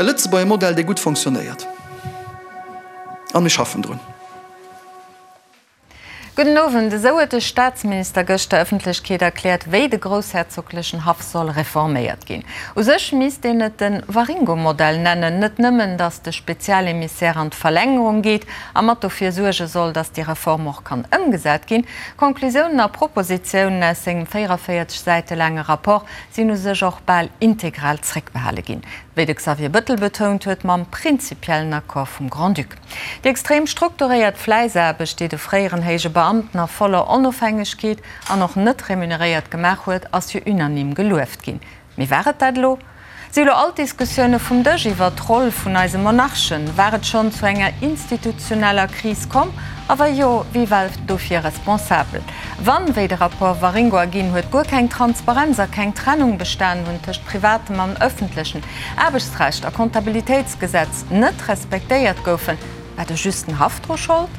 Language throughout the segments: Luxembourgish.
E Lëtzebuerger Modell, dee gutt fonctionnéiert. A mir schaffen drun. Gudden Owend. Esou huet de Staatsminister gëscht der Ëffentlechkeet erkläert, wéi de groussherzoglechen Haff soll reforméiert ginn. U sech misst een et de Waringo-Modell nennen. Net nëmmen, datt de Spezialemissär an d'Verlängerung geet a mat dofir suerge soll, datt déi Reform och kann ëmgesat ginn. Conclusiounen a Propositiounen aus sengem 44 Säite laange Rapport sinn u sech och bal integral zréckbehale ginn, wéi de Xavier Bëttel betount huet, mam prinzipiellen Accord vum Grand-Duc. Déi extrem strukturéiert Fläissaarbecht, déi de fréieren héije Beamten a voller Onofhängegkeet an och net remuneréiert gemaach huet, ass jo unanime gelueft ginn. Mee war et dat elo? Si elo all d'Diskussioune vum Dësch iwwert d'Roll vun eise Monarchen? War et schonn zu enger institutioneller Kris komm? A wa jo, wie war dofir responsabel? Wann, wéi de Rapport Waringo erginn huet, guer keng Transparenz a keng Trennung bestanen hunn tëscht privatem an ëffentlechen, Aarbechtsrecht a Comptabilitéitsgesetz net respektéiert goufen, war de just den Haff dru Schold?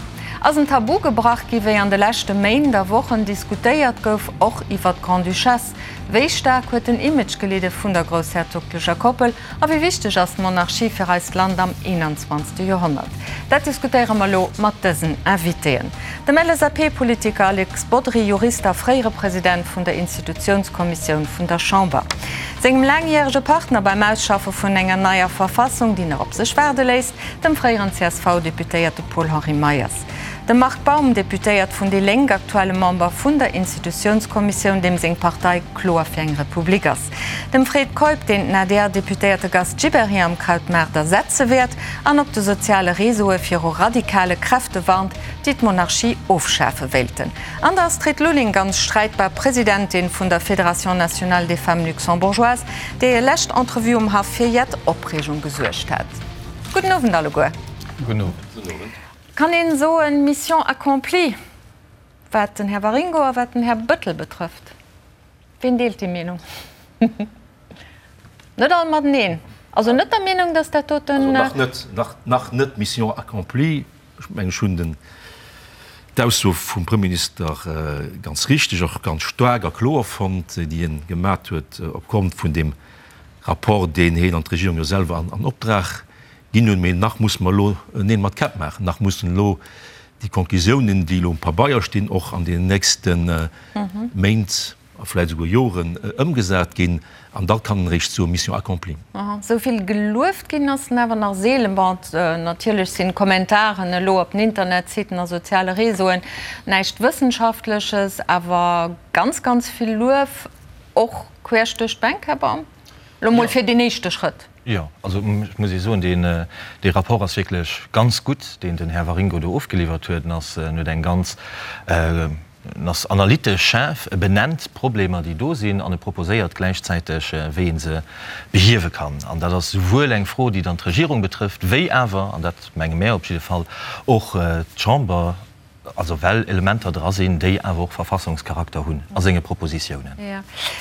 Ass en Tabu gebrach gi wéi an de leschte Méint a Wochen diskutéiert gouf, och iwwert d'Grande-Duchesse? Wéi staark huet den Image gelidde vun der groussherzoglecher Koppel a wéi wichteg ass d'Monarchie fir eist Land am 21. Joerhonnert? Dat diskutéiere mer elo mat dësen Invitéen, dem LSAP-Politiker Alex Bodry, Jurist a fréiere President vun der Institutiounskommissioun vun der Chamber, sengem laangjärege Partner beim Ausschaffe vun enger neier Verfassung, déi nach op sech waarde léisst, dem fréieren CSV-Deputéierte Paul-Henri Meyers. De Marc Baum, Deputéiert vun déi Lénk, aktuelle Member vun der Institutiounskommissioun, deem seng Partei kloer fir eng Republik ass. Dem Fred Keup, deen den ADR-Deputéierte Gast Gibéryen am Krautmaart ersetze wäert an op de soziale Réseaue viru radikale Kräfte warnt, déi d'Monarchie ofschafe wéilten. An der Astrid Lulling, ganz streitbar Presidentin vun der Fédération nationale des femmes luxembourgeoises, déi hir lescht Entrevue um Haff fir jett Opreegung gesuergt hat. Gudden Owend alleguer. Gudden Owend. Kann een soen, Mission accomplie, wat den Här Waringo a wat den Här Bëttel betrëfft? Ween deelt déi Meenung? Net all mateneen. Also net der Meenung, datt dat doten. Also nach net, nach, nach net Mission accomplie. Ech mengen, ech hunn den, d'Ausso vum Premierminister ganz richteg, och ganz staark a kloer fonnt, déi en gemat huet opgrond vun deem Rapport, deen heen an d'Regierung jo selwer an, an Optrag Ginn hunn. Mee nach musse mer elo Neel mat Käpp maachen, nach mussen elo déi Konklusiounen, déi elo um Pabeier stinn, och an deenen nächste Méint a vläicht esouguer Joren ëmgesat ginn. An da kann een eréischt soen, Mission accomplie. Esou vill gelueft ginn ass en awer nach seelen. Bon, natierlech sinn d'Kommentaren elo op den Internetsiten a soziale Réseauen näischt Wëssenschaftleches, awer ganz, ganz vill Luef, och queesch duerch d'Bänk, Här Baum, elo mol fir deen éischte Schrëtt. Jo, also ech muss Iech soen, deen, dee Rapport ass wierklech ganz gutt, deen den Här Waringo do ofgeliwwert huet. En ass, en huet eng ganz, en ass analytesch schaarf, e benennt d'Problemer, déi do sinn, an e proposéiert gläichzäiteg, wéi ee se behiewe kann. An dat ass souwuel eng Fro, déi dann d'Regierung betrëfft, wéi awer, an dat menge mär op jidde Fall, och d'Chamber. Also well Elementer dra sinn, déi awer och Verfassungscharakter hunn a senge Propositiounen. Jo.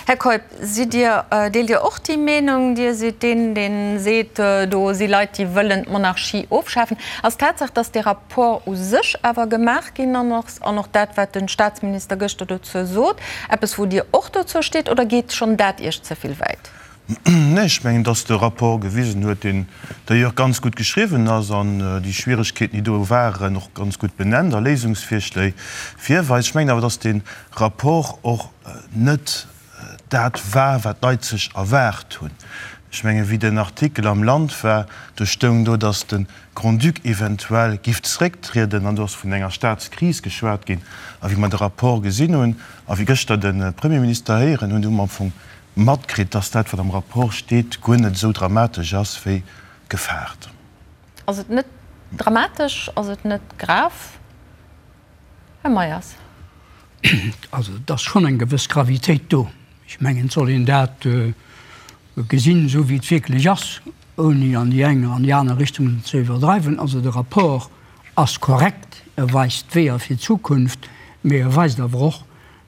Här Keup, sidd Dir, deelt Dir och déi Meenung? Dir sidd deen, dee seet, do si Leit, déi wëllen d'Monarchie ofschafen. Ass d'Tatsaach, datt dee Rapport u sech awer gemaach ginn an ass, an och dat, wat de Statsminister gëschter dozou sot, eppes, wou Dir och dozou steet, oder geet schonn dat Iech ze vill wäit? Nee, ech mengen, dass de Rapport gewisen huet, deen d'ailleurs ganz gutt geschriwwen ass an déi Schwieregkeeten, déi do waren, och ganz gutt benennt a Léisungsvirschléi virweist. Ech mengen awer, dass dee Rapport och net dat war, wat d'Leit sech erwaart hunn. Ech mengen, wéi den Artikel am Land war, do stoung do, dass de Grand-Duc eventuell giff zerécktrieden an do ass vun enger Staatskris geschwat ginn. A wéi mer de Rapport gesinn hunn a wéi gëschter de Premierminister héieren hunn, hu mer am Fong matkritt, dass dat, wat am Rapport steet, guer net esou dramatesch ass, wéi gefaart. Ass et net dramatesch? Ass et net grav, Här Meyers? Also, et ass schonn eng gewëss Gravitéit do. Ech mengen, et soll een dat gesinn, esou wéi et wierklech ass, ouni an déi eng an déi aner Richtung ze iwwerdreiwen. Also, de Rapport ass korrekt, e weist d'Weeër fir d'Zukunft, mee e weist awer och,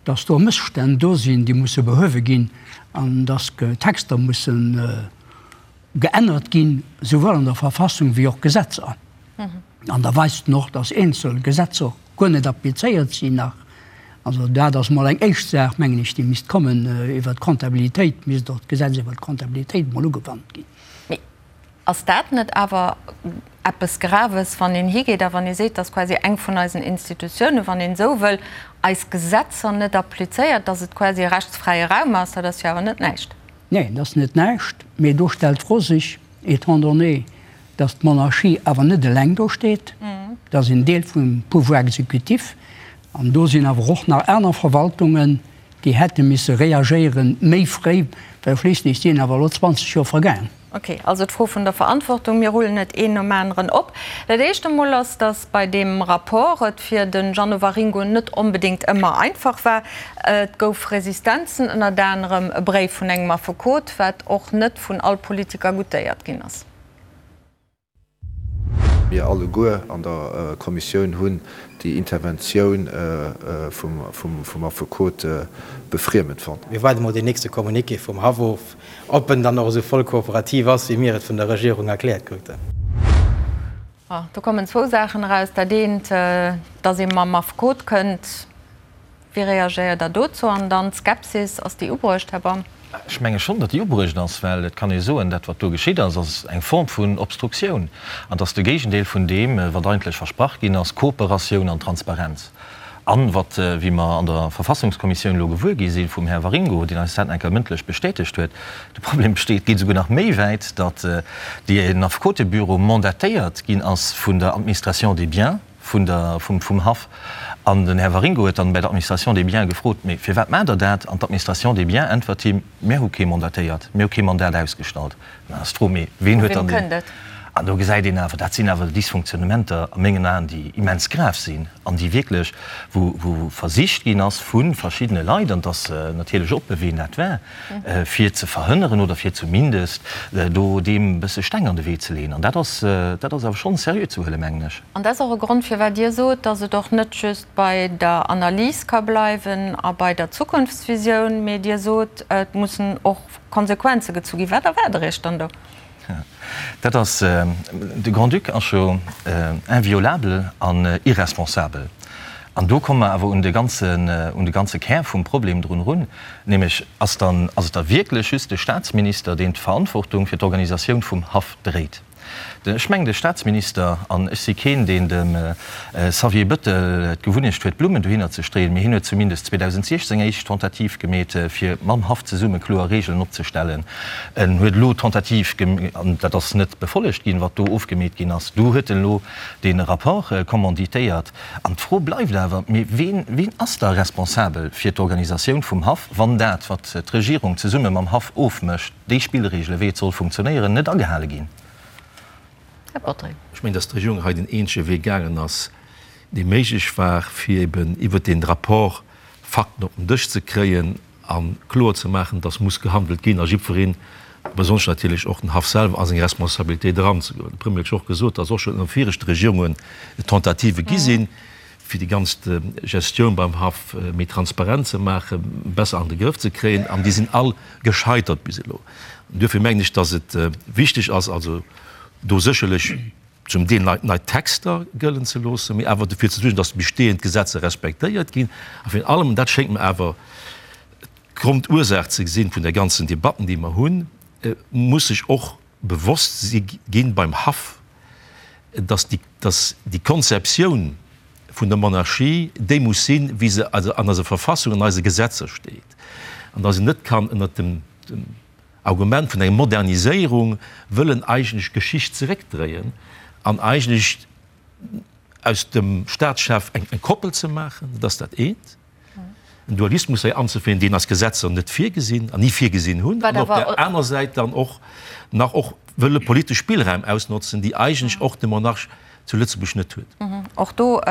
dass do Mësstänn do sinn, déi musse behuewe ginn an dass Texter musse geännert ginn, souwuel an der Verfassung wéi och Gesetzer. An da weist en och, dass eenzel Gesetzer guer net applizéiert sinn nach. Also dat ass mol eng éischt Saach, mengen ech, déi misst kommen. Iwwert d'Comptabilitéit misst och d'Gesetz iwwert d'Comptabilitéit mol ugewannt ginn. Ass dat net awer eppes Graves, wann een higeet a wann ee seet, dass quasi eng vun eisen Institutiounen, wann een esou wëll, eis Gesetzer net applizéiert, dass et quasi e rechtsfräie Raum ass? Dat ass jo awer net näischt. Neen, dat ass net näischt. Mee do stellt d'Fro sech, étant donné, dass d'Monarchie awer net eleng do steet, dat ass en Deel vum Pouvoir exécutif, an do sinn awer och nach aner Verwaltungen, déi hätte misse reagéieren méi fréi, well schliisslech sinn awer elo 20 Joer vergaang. Ok, also d'Fro vun der Verantwortung. Mir rullen et een nom aneren op. Dat éischt emol ass, datt bei deem Rapport et fir de Jeannot Waringo net onbedéngt ëmmer einfach war. Et gouf Resistenzen, ënnert anerem e Bréif vun engem Affekot, wat och net vun all Politiker goutéiert ginn ass. Mir alleguer an der Kommissioun hunn déi Interventioun vum Affekot befriemend fonnt. Mir waarde mol deen nächste Communiqué vum Haff of, ob en dann och esou voll kooperativ ass, wéi mir et vun der Regierung erkläert kruten. Do kommen zwou Saachen eraus. Dat eent, datt ee mam Affekot kënnt. Wéi reagéiert Der dozou? An dann d'Skepsis, ass déi ubruecht, Här Baum? Ech menge schonn, datt déi ubruecht ass, well et kann ee soen, dat wat do geschitt ass, ass eng Form vun Obstruktioun an et ass de Géigendeel vun deem, wat eigentlech versprach ginn ass, Kooperatioun an Transparenz. An wat, wéi mer an der Verfassungskommissioun elo gewuer gi si vum Här Waringo, deen eis dat nach eng Kéier mëndlech bestätegt huet, de Problem besteet, geet esouguer nach méi wäit, datt deen Affekotebüro mandatéiert ginn ass vun der Administration des biens, vun der, vum, vum Haff. An den Här Waringo huet dann bei der Administration des biens gefrot, Mee firwat maacht Der dat? An d'Administration des biens äntwert him, Mir hu kee mandatéiert, mir hu kee Mandat ausgestallt. Dann ass d'Fro, Mee ween huet dann deen? An do gesäit een awer, dat sinn awer Dysfonctionnementer a mengen Aen, déi immens grav sinn an déi wierklech, wou, wou versicht ginn ass vu verschiddene Leit, an et ass natierlech oppe ween dat war, fir ze verhënneren oder fir zumindest do deem e bësse Steng an de Wee ze leeën. An dat ass, dat ass awer schonn seriö ze huelen, mengen ech. An dat ass och e Grond, firwat Dir sot, datt et och net just bei der Analys ka bleiwen a bei der Zukunftsvisioun, mee Dir sot, et mussen och Konsequenze gezu ginn. Wat erwaart Der Iech dann do? Dat ass, de Grand-Duc ass jo inviolabel an irresponsabel. An do komme mer awer un de ganzen, un de ganze Kär vum Problem drun erun, nämlech, Ass dann, ass et da wierklech just de Statsminister, deen d'Verantwortung fir d'Organisatioun vum Haff dréit? Ech mengen, de Statsminister, an ech si keen, deen dem Xavier Bëttel d'Gewunnecht huet, Blummen dohinner ze streeën, mee hien huet zumindest 2016 eng éischt Tentative gemeet, fir mam Haff zesumme kloer Regeln opzestellen. En huet elo d'Tentative, an dat ass net befollegt ginn, wat do ofgemeet ginn ass, do huet en elo dee Rapport commanditéiert. An d'Fro bleift awer, Mee ween, ween ass da responsabel fir d'Organisatioun vum Haff, wann dat, wat d'Regierung zesumme mam Haff ofmécht, déi Spillregele wéi et soll funktionéieren, net agehale ginn? Här Bodry. Ech mengen, datt d'Regierung hei den eenzege Wee gaangen ass, dee méiglech war, fir eben iwwert dee Rapport Fakten op den Dësch ze kréien a kloer ze maachen, datt muss gehandelt ginn a jiddwereen, besonnesch natierlech och den Haff selwer, a seng Responsabilitéit eranzegoen. De Premier huet jo och gesot, datt och schonn ënner viregte Regierungen Tentativë gi sinn, fir déi ganz Gestioun beim Haff méi transparent ze maachen, besser an de Grëff ze kréien, an déi sinn all gescheitert bis elo. An duerfir mengen ech, datt et wichteg ass, also do sécherlech zum Deel nei, nei Texter gëllen ze loossen, mee awer dofir ze suergen, datt déi bestehend Gesetzer respektéiert ginn. A virun allem, an dat schéngt mer awer d'Grondursaach ze sinn vun der ganzen Debatten, déi mer hunn, muss sech och bewosst si ginn beim Haff, datt déi, datt déi Konzeptioun vun der Monarchie déi muss sinn, wéi se an eiser Verfassung, an eise Gesetzer steet, an datt een net kann ënnert dem, dem Argument vun enger Moderniséierung wëllen eigentlech d'Geschicht zeréckdréien an eigentlech aus dem Staatschef eng Koppel ze maachen, dat ass dat eent, en Dualismus hei anzeféieren, deen eis Gesetzer net virgesinn an ni virgesinn hunn, an op där aner Säit dann och nach och wëlle politesch Spillräim ausnotzen, déi eigentlech och de Monarch zu Lëtzebuerg net huet. Och do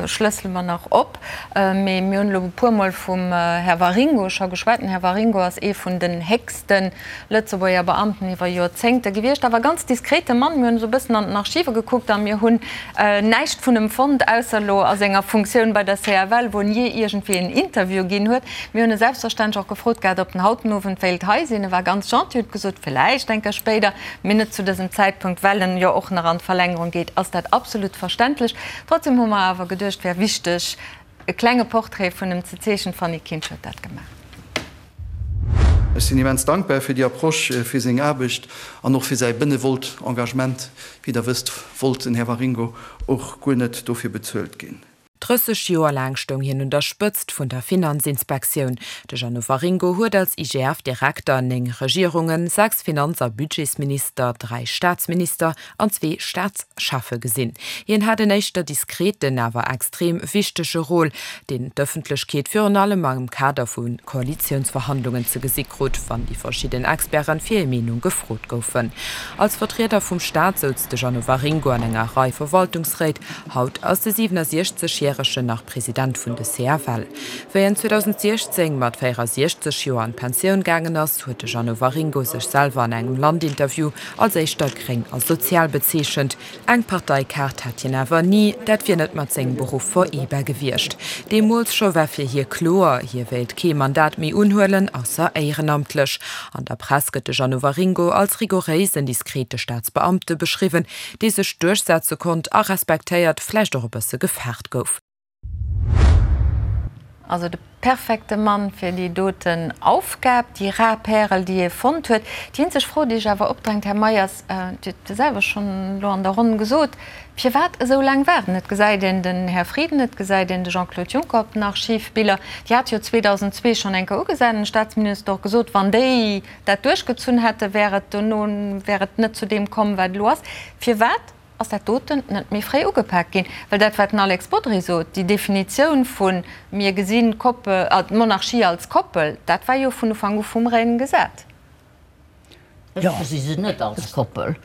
schlëssele mer nach op. Mee mir hunn elo e puermol vum Här Waringo scho geschwat. Den Här Waringo ass ee vun den héchste Lëtzebuerger Beamten iwwer Joerzéngte gewiescht, awer e ganz diskrete Mann. Mir hunn esou e bëssen an den Archive gekuckt a mir hunn näischt vun em fonnt, ausser elo a senger Funktioun bei der CFL, wou en jee iergendwéi en Interview ginn huet. Mir hunn e selbstverständlech och gefrot gehat, ob en haut den Owend wéilt hei sinn. E war ganz gentil, huet gesot, villäicht eng Kéier spéider. Mee net zu dësem Zäitpunkt, well en jo och nach an d'Verlängerung geet, ass dat absolut verständlech. Trotzdem hu mer awer geduecht, wär wichteg, e klenge Portrait vun em ze zeechnen. D'Fanny Kinsch huet dat gemaach. Ech sinn immens dankbar fir déi Approche, fir seng Aarbecht an och fir säi benevolt Engagement. Wéi Der wësst, wollt den Här Waringo och guer net dofir bezuelt ginn. 30 Joer laang stoung hien un der Spëtzt vun der Finanzinspektioun. De Jeannot Waringo huet als IGF-Direkter 9 Regierungen, 6 Finanz a Budgetsminister, 3 Staatsminister an zwee Staatscheffe gesinn. Hien hat en éischter diskreten, awer extrem wichtege Rôle, deen d'Ëffentlechkeet virun allem am Kader vu Koalitiounsverhandlungen ze gesi krut, wann déi verschidden Experten fir hir Meenung gefrot goufen. Als Vertrieder vum Staat souz de Jeannot Waringo an enger Rei Verwaltungsréit. Haut ass de 67 Järegen nach President vun de CFL. Wéi en 2016 mat 64 Joer an d'Pensioun gaangen ass, huet de Jeannot Waringo sech selwer an engem Land-Interview als éischter gréng a sozial bezeechent. Eng Parteikaart hat hien awer ni, dat wier net mat sengem Beruff vereebar gewiescht. Deemools scho war fir hie kloer, hie wéilt kee Mandat méi unhuelen, ausser éierenamtlech. An der Press gëtt de Jeannot Waringo als rigoréisen, diskrete Staatsbeamte beschriwwen, dee sech duerchsetze konnt a respektéiert, vläicht och e bësse gefaart gouf. Also de perfekte Mann fir déi doten Aufgab, déi rar Pärel, déi hie fonnt huet. Déi eenzeg Fro, déi sech awer opdrängt, Här Meyers, Dir hutt se selwer schonn elo an der Ronn gesot, Firwat esou laang waarden? Et gesäit een den Här Frieden, et gesäit een de Jean-Claude Juncker op den Archivbiller. Déi hate jo 2002 schonn eng Kéier ugesat an de Staatsminister och gesot, wann déi dat duerchgezunn hätten, wär et dono wär et net zu deem komm, wat elo ass. Firwat ass dat doten net méi fréi ugepak ginn? Well dat, wat den Alex Bodry sot, déi Definitioun vu mir gesinn d'Koppel, d'Monarchie als Koppel, dat war jo vun Ufank u vum Règne gesat. Ech gesi se net als Koppel.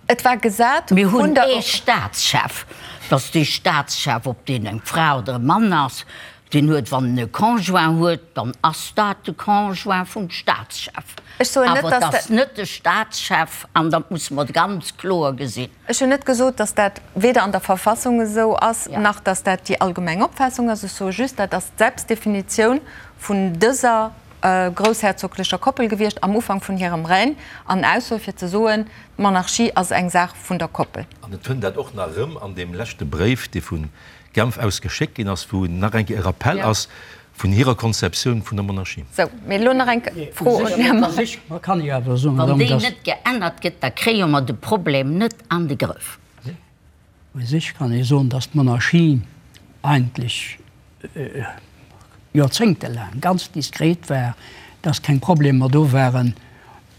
Et war gesat Mir hunn ee Staatschef. Dass dee Staatschef, ob deen eng Fra oder e Mann ass, deen huet, wann en e Conjoint huet, dann ass dat de Conjoint vum Staatschef. Ech soen net, Awer et dass ass net de Staatschef, an dat musse mer ganz kloer gesinn. Ech hunn net gesot, dass dat weder an der Verfassung esou ass, nach dass dat déi allgemeng Opfaassung ass. Ech soe just, dat ass d'Selbstdefinitioun vun dëser groussherzoglecher Koppel gewiescht am Ufank vun hirem Règne, an Ausso fir ze soen, d'Monarchie ass eng Saach vun der Koppel. An et fënnt dat och nach erëm an deem leschte Bréif, dee vu Genf aus geschéckt ginn ass, wou nach eng Kéier e Rappell ass vun hirer Konzeptioun vun der Monarchie. Sou, mee elo nach eng Fro un den Här Meisch. Wann déi net geännert gëtt, da kréie mer de Problem net an de Grëff. U sech kann ee soen, datt d'Monarchie eigentlech joerzéngtelaang ganz diskret war, datt keng Problemer do waren.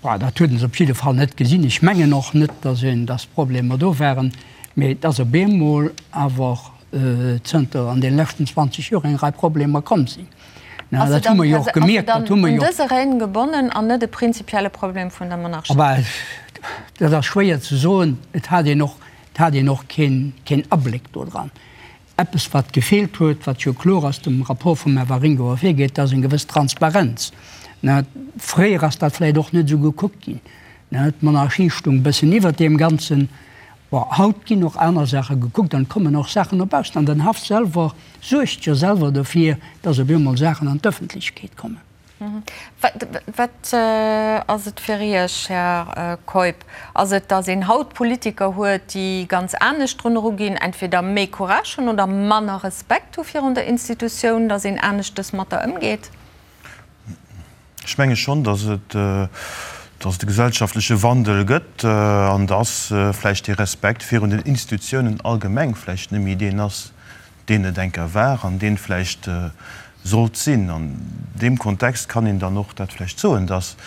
Bon, dat huet een se op jidde Fall net gesinn. Ech mengen och net, datt een, datt Problemer do waren, mee et ass op eemol awer zënter an deene leschten 20 Joer eng Rei Problemer komm sinn. Ass se dann, ass se dann un dëse Règne gebonnen an net e prinzipielle Problem vun der Monarchie? Bah, dat ass schwéier ze soen. Et hat een och, et hat een och keen, keen Abléck do dran. Eppes, wat gefeelt huet, wat jo kloer aus dem Rapport vum Här Waringo ervirgeet, dat ass eng gewëss Transparenz. Fréier ass dat vläicht och net esou gekuckt ginn. D'Monarchie stung e bëssen iwwert deem Ganzen. Bon, haut ginn och aner Saache gekuckt an et kommen och Saachen no baussen. An den Haff selwer suergt jo selwer dofir, dass op eemol Saachen an d'Ëffentlechkeet kommen. Wat ass et fir Iech, Här Keup? Ass et, datt een haut Politiker huet, déi ganz anescht drun eruginn, entweder méi Courage hunn oder manner Respekt hu virun der Institutioun, datt een aneschtes mat der ëmgeet? Ech menge schonn, datt et, datt et e gesellschaftleche Wandel gëtt an datt vläicht dee Respekt virun den Institutiounen allgemeng vläicht net méi deen ass, deen et eng Kéier war an deen vläicht sollt sinn. An deem Kontext kann een dann och dat vläicht soen, datt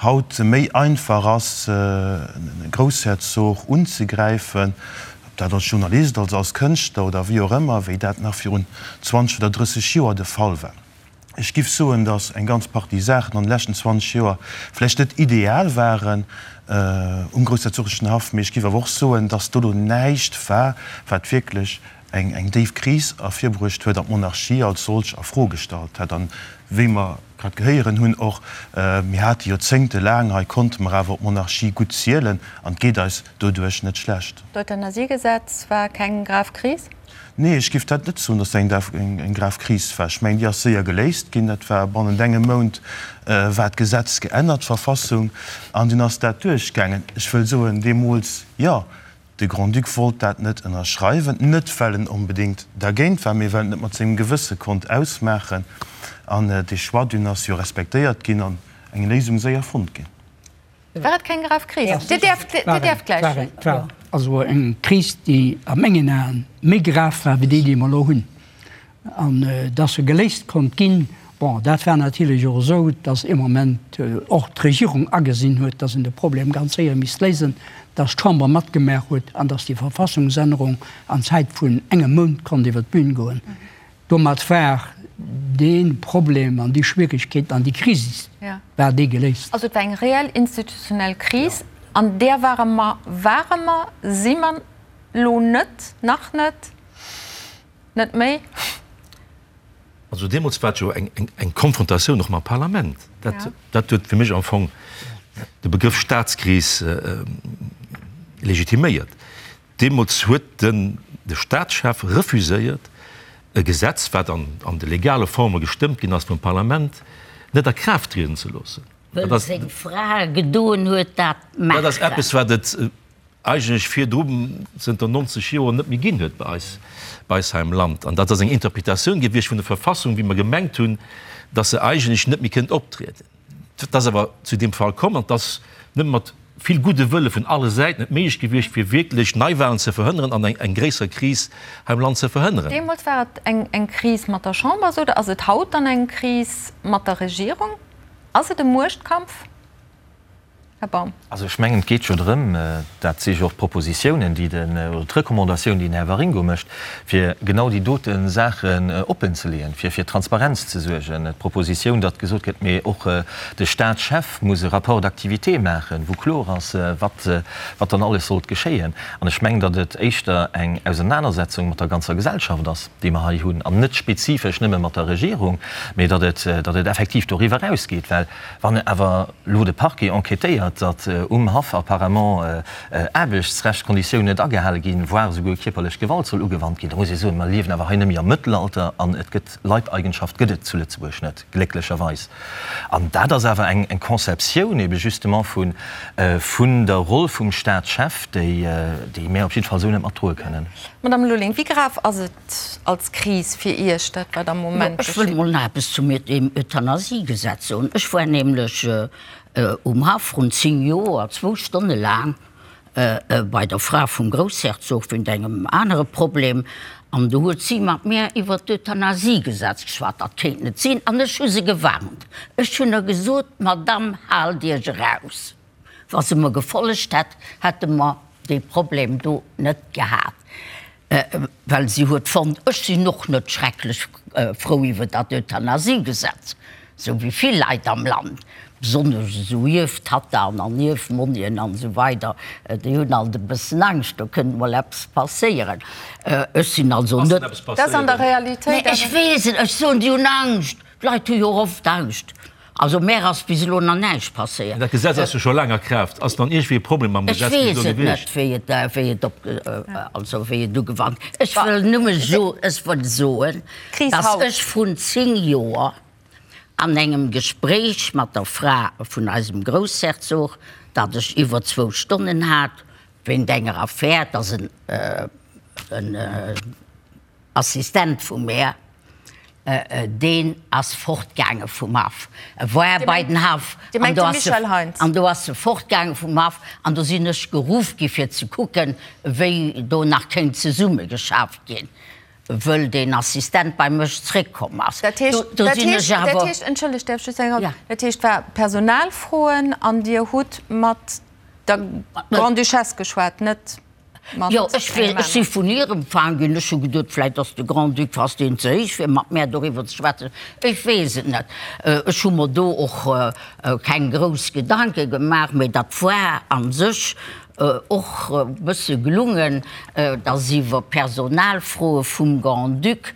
haut méi einfach ass, e Groussherzog unzegräifen, ob dat als Journalist, als als Kënschtler oder wéi och ëmmer, wéi dat nach virun 20 oder 30 Joer de Fall war. Ech giff soen, datt eng ganz Partie Saachen an de leschten 20 Joer vläicht net ideal waren um groussherzoglechen Haff, mee ech giff awer och soen, datt do lo näischt war, wat wierklech eng eng déif Kris ervirbruecht huet an d'Monarchie als solch a Fro gestallt hätt. An wéi mer grad gehéieren hunn och, mir hate joerzéngtelaang, hei konnte mer awer op d'Monarchie gutt zielen an et geet eis doduerch net schlecht. D'Euthanasiegesetz war keng grav Kris? Nee, ech géif dat net soen, datt dat eng grav Kris war. Ech mengen, déi ass séier geléist ginn. Dat war bannent engem Mount war d'Gesetz geännert, d'Verfassung, an dunn ass dat duerchgaangen. Ech wëll soen, deemools, jo, de Grand-Duc wollt dat net ënnerschreiwen, net well en onbedéngt dergéint war, mee well en et mat sengem Gewësse konnt ausmaachen. An dee Choix dunn ass jo respektéiert ginn. eng Léisung séier fonnt ginn. War et keng grav Kris? Dir däerft, Dir däerft gläich. Et war also eng Kris, déi a mengen Aen méi grav war wéi déi, déi mer elo hunn. An dass se geléist konnt ginn, bon, dat war natierlech och esou, dass ee Moment och d'Regierung agesinn huet, dass een de Problem ganz séier misst léisen, dass d'Chamber matgemaach huet an dass déi Verfassungsännerung an Zäit vun engem Mount konnt iwwer d'Bühn goen. Domat war dee Problem an déi Schwierigkeet an déi Kris war déi geléist. Also et war eng reell institutionell Kris, an där ware mer, ware mer, si mer elo net, nach net, net méi. Also deemools war et jo eng Konfrontatioun och mam Parlament. Dat huet fir mech am Fong de Begrëff Staatskris legitiméiert. Deemools huet den de Staatschef refuséiert, e Gesetz, wat an de legale Forme gestëmmt ginn ass vum Parlament, net a Kraaft trieden ze loossen. Wëll seng Fra gedoen huet dat maachen. Dat ass eppes, wat et eigentlech virdru zënter 90 Joer net méi ginn huet bei eis, bei eis hei am Land. An dat ass eng Interpretatioun gewiescht vun der Verfassung, wéi mer gemengt hunn, datt se eigentlech net méi kënnt optrieden. Et ass awer zu deem Fall komm an et ass nëmme mat vill gudde Wëlle vun alle Säiten et méiglech gewiescht, fir wierklech Neiwahlen ze verhënneren an eng gréisser Kris hei am Land ze verhënneren. Deemools war et eng Kris mat der Chamber, sot Der. Ass et haut dann eng Kris mat der Regierung? Ass et e Muechtkampf? Här Baum. Also ech mengen, et geet jo drëm, dat si jo och d'Propositiounen, déi den, oder d'Recommandatioun, déi den Här Waringo mécht, fir genau déi dote Saachen oppenzeleeën, fir fir Transparenz ze suergen. D'Propositioun, datt gesot gëtt, mee och de Staatschef muss e Rapport d'activité maachen, wou kloer ass, wat, wat dann alles sollt geschéien. An ech mengen, datt et éischter eng Ausernanersetzung mat der ganzer Gesellschaft ass, déi mer hei hunn, an net spezifesch nëmme mat der Regierung, mee datt et, datt et effektiv doriwwer erausgeet, well Wann awer elo de Parquet enquêtéiert, datt um Haff apparemment Aarbechtsrechtskonditiounen net agehale ginn, voire esouguer kierperlech Gewalt soll ugewannt ginn, da muss ee soen, mer liewen awer hei net méi am Mëttelalter an et gëtt Leibeigenschaft gëtt et zu Lëtzebuerg net, glécklecherweis. An dat ass awer eng Conceptioun ebe justement vun der Roll vum Staatschef, déi mär op jidde Fall esou net matdroe kënnen. Madame Lulling, wéi grav ass et, als Kris fir Iech, dat wat am Moment Ech wëll mol nach eppes zum Euthanasiegesetz soen. Ech war nämlech um Haff vrun 10 Joer zwou Stonne laang bei der Fra vum Groussherzog wéint engem anere Problem an do huet si mat mär iwwer d'Euthanasiegesetz geschwat. Dat kéint net sinn an ech hu se gewarnt. Ech hunn der gesot, Madamm, haalt Iech eraus. Wa se mer gefollegt hätt, hätte mer dee Problem do net gehat. Well si huet fonnt, ech sinn och net schrecklech frou iwwer dat Euthanasiegesetz, esou wéi vill Leit am Land, besonnesch esou Ierftattaen an Ierfmonnien an esou weider, déi hunn alt e bëssen Angscht, do kënnt mol eppes passéieren. Ech sinn also net. Dat ass an der Realitéit. Mä ech weess et, ech soen, déi hunn Angscht. D'Leit hu jo och oft Angscht. Also mär ass bis elo nach näischt passéiert. Dat Gesetz ass jo scho laang a Kraaft. Ass dann iergendwéi e Problem mam Gesetz bis elo gewiescht? Ech weess et net, wéi et, wéi et op, also wéi et ugewannt. Ech wëll nëmme so, ech wëll soen, dass ech vrun 10 Joer an engem Gespréich mat der Fra vun eisem Groussherzog, dat ech iwwer zwou Stonnen hat, wéint enger Affär, dass en, en, Assistent vum Här, deen ass fortgaange vum Haff. E war bei den Haff an do ass e, an do ass e fortgaange vum Haff an do sinn ech geruff gi fir ze kucken, wéi do nach kéint zesummegeschafft ginn, wëll deen Assistent bei mech zréckkomm ass. Dat heescht, dat heescht, dat heescht, entschëllegt, däerf ech just eng, dat heescht, war Personalfroen an Dir hutt mat der Grande-Duchesse geschwat, net? Jo, ech wéll, ech si vun hir empfaang ginn. Ech hu geduet, vläit ass de Grand-Duc, ass deen ze héich fir mat mär doriwwer ze schwätzen. Ech weess et net. Ech hu mer do och keng grouss Gedanke gemaach, mee dat war a sech och e bësse gelungen, datt iwwer Personalfroe vum Grand-Duc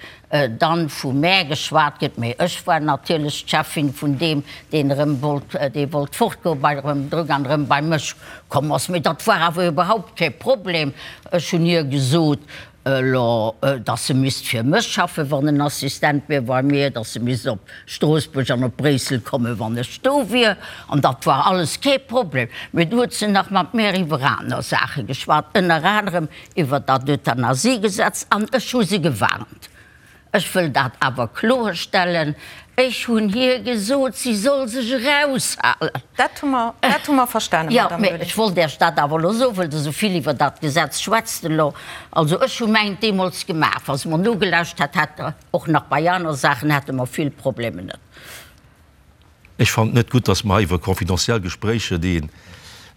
dann vu mär geschwat gëtt, mee ech war natierlech d'Cheffin vun deem, deen erëm wollt, dee wollt fortgoen, bei erëm drück an erëm bei mech komm ass. Mee dat war awer iwwerhaupt kee Problem. Ech hunn hir gesot, elo, dass se misst fir mech schaffen, wann en Assistent wier bei mir, dass se misst op Stroossbuerg an op Bréissel kommen, wann ech do wier. An dat war alles kee Problem. Mee du huet se nach mat mär iwwer aner Saache geschwat, ënner anerem iwwer dat Euthanasiegesetz an ech hu se gewarnt. Ech wëll dat awer kloerstellen. Ech hunn hir gesot, si soll sech eraushalen. Dat hu mer, dat hu mer verstanen, Jo, Madame mä Lulling. ech wollt Iech dat awer elo soen, well Der esou vill iwwer dat Gesetz schwätzt elo. Also ech hu mäint deemools gemaach. Wa se mer nogelauscht hätt, hätt Der och nach bei aner Saachen hätte mer vill Problemer net. Ech fannen et net gutt, dass mer hei iwwer confidentiel Gespréicher, déi ee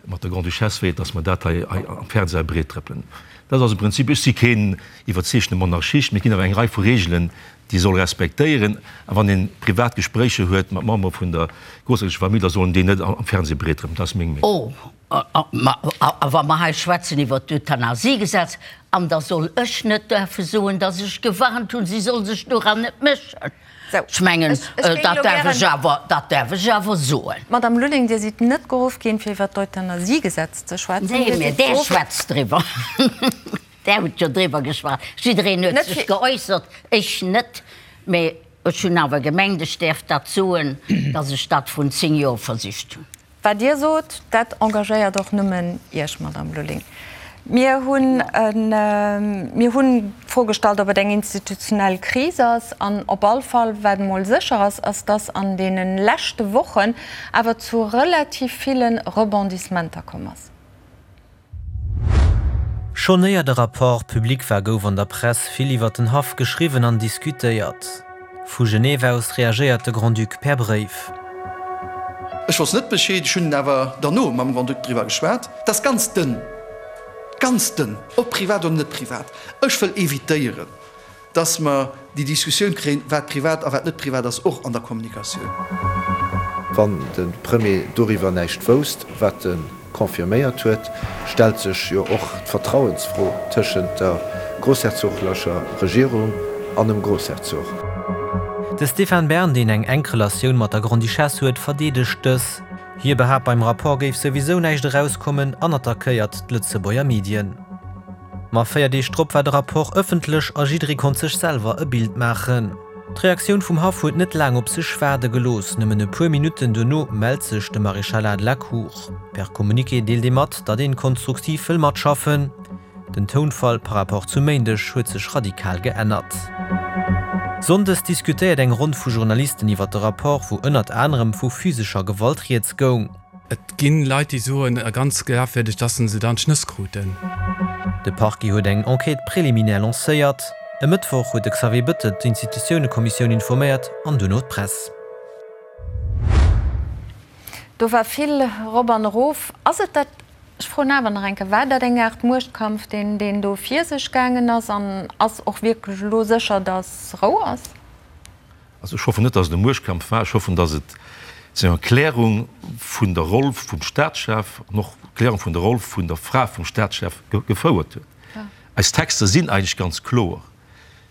mat der Grande-Duchesse féiert, dass mer dat hei am Fernseh breettrëppelen. Dat ass e Prinzip. Ech si keen iwwerzeegtene Monarchist, mee et ginn awer eng Rei vu Regeln, déi ee soll respektéieren. A wann ee privat Gespréicher huet mat Membere vun der grossherzoglecher Famill, da sollen déi net am Fernseh breettrëppelen. Dat ass meng Meenung. Oh, a wa mer hei schwätzen iwwert d'Euthanasiegesetz, an da soll ech net däerfe soen, dass ech gewarnt hunn, si soll sech doran net mëschen. Ech mengen, dat däerf ech awer, dat däerf ech awer soen. Madame Lulling, Dir sidd net geruff ginn, fir iwwer d'Euthanasiegesetz ze schwätzen. Nee, mä Där schwätzt driwwer. Där hutt jo driwwer geschwat. Jiddereen huet sech geäussert, ech net. Mä ech hunn awer gemengt, ech däerf dat soen, datt ech dat vrun 10 Joer versicht hunn. Wat Dir sot, dat engagéiert och nëmmen Iech, Madame Lulling. Mir hunn, mir hunn d'Fro gestallt, ob et eng institutionell Kris ass. An op all Fall, wat emol sécher ass, ass, dass an deene leschte Wochen awer zu relativ ville Rebondissementer komm ass. Schonn éier de Rapport public war, gouf an der Press vill iwwer den Haff geschriwwen an diskutéiert. Vu Genève aus reagéiert de Grand-Duc per Bréif. Ech wosst net Bescheed, ech hunn awer derno mam Grand-Duc driwwer geschwat. Dat ass ganz dënn, ganz dënn, ob privat oder net privat. Ech wëll evitéieren, dass mer déi Diskussioun kréien, wat privat a wat net privat ass, och an der Kommunikatioun. Wann de Premier doriwwer näischt wousst, wat e confirméiert huet, stellt sech jo och d'Vertrauensfro tëschent der grossherzoglecher Regierung an dem Grossherzog. De Stéphane Bern, deen eng enk Relatioun mat der Grande-Duchesse huet, verdeedegt dës. Hie behaapt, beim Rapport géif souwisou näischt erauskommen an attackéiert d'Lëtzebuerger Medien. Ma 4 Deeg drop war de Rapport ëffentlech a jidderee konnt sech selwer e Bild maachen. D'Reaktioun vum Haff huet net laang op sech waarde gelooss. Nëmmen e puer Minutten duerno mellt sech de Maréchalat de la Cour. Per Communiqué deelt ee mat, datt een konstruktiv wëll matschaffen. Den Tounfall par rapport zum Méindeg huet sech radikal geännert. Sonndes diskutéiert eng Ronn vu Journalisten iwwer de Rapport, wou ënnert anerem vu physescher Gewalt rieds goung. Et ginn Leit déi soen, a ganz glafwierdeg, dass se dann d'Schnëss kruten. De Parquet huet eng Enquête préliminaire lancéiert. E Mëttwoch huet de Xavier Bettel d'Institutiounekommissioun informéiert an duerno d'Press. Do war vill erop an erof. Ass et dat, ech froen awer nach eng Kéier, war dat eng Aart Muechtkampf, deen deen do vir sech gaangen ass? An ass och wierklech elo sécher, dass Rou ass? Also ech hoffen net, datt et e Muechtkampf war. Ech hoffen, datt et zu enger Klärung vun der Roll vum Staatschef an och Klärung vun der Roll vun der Fra vum Staatschef gefouert huet. Eis Texter sinn eigentlech ganz kloer.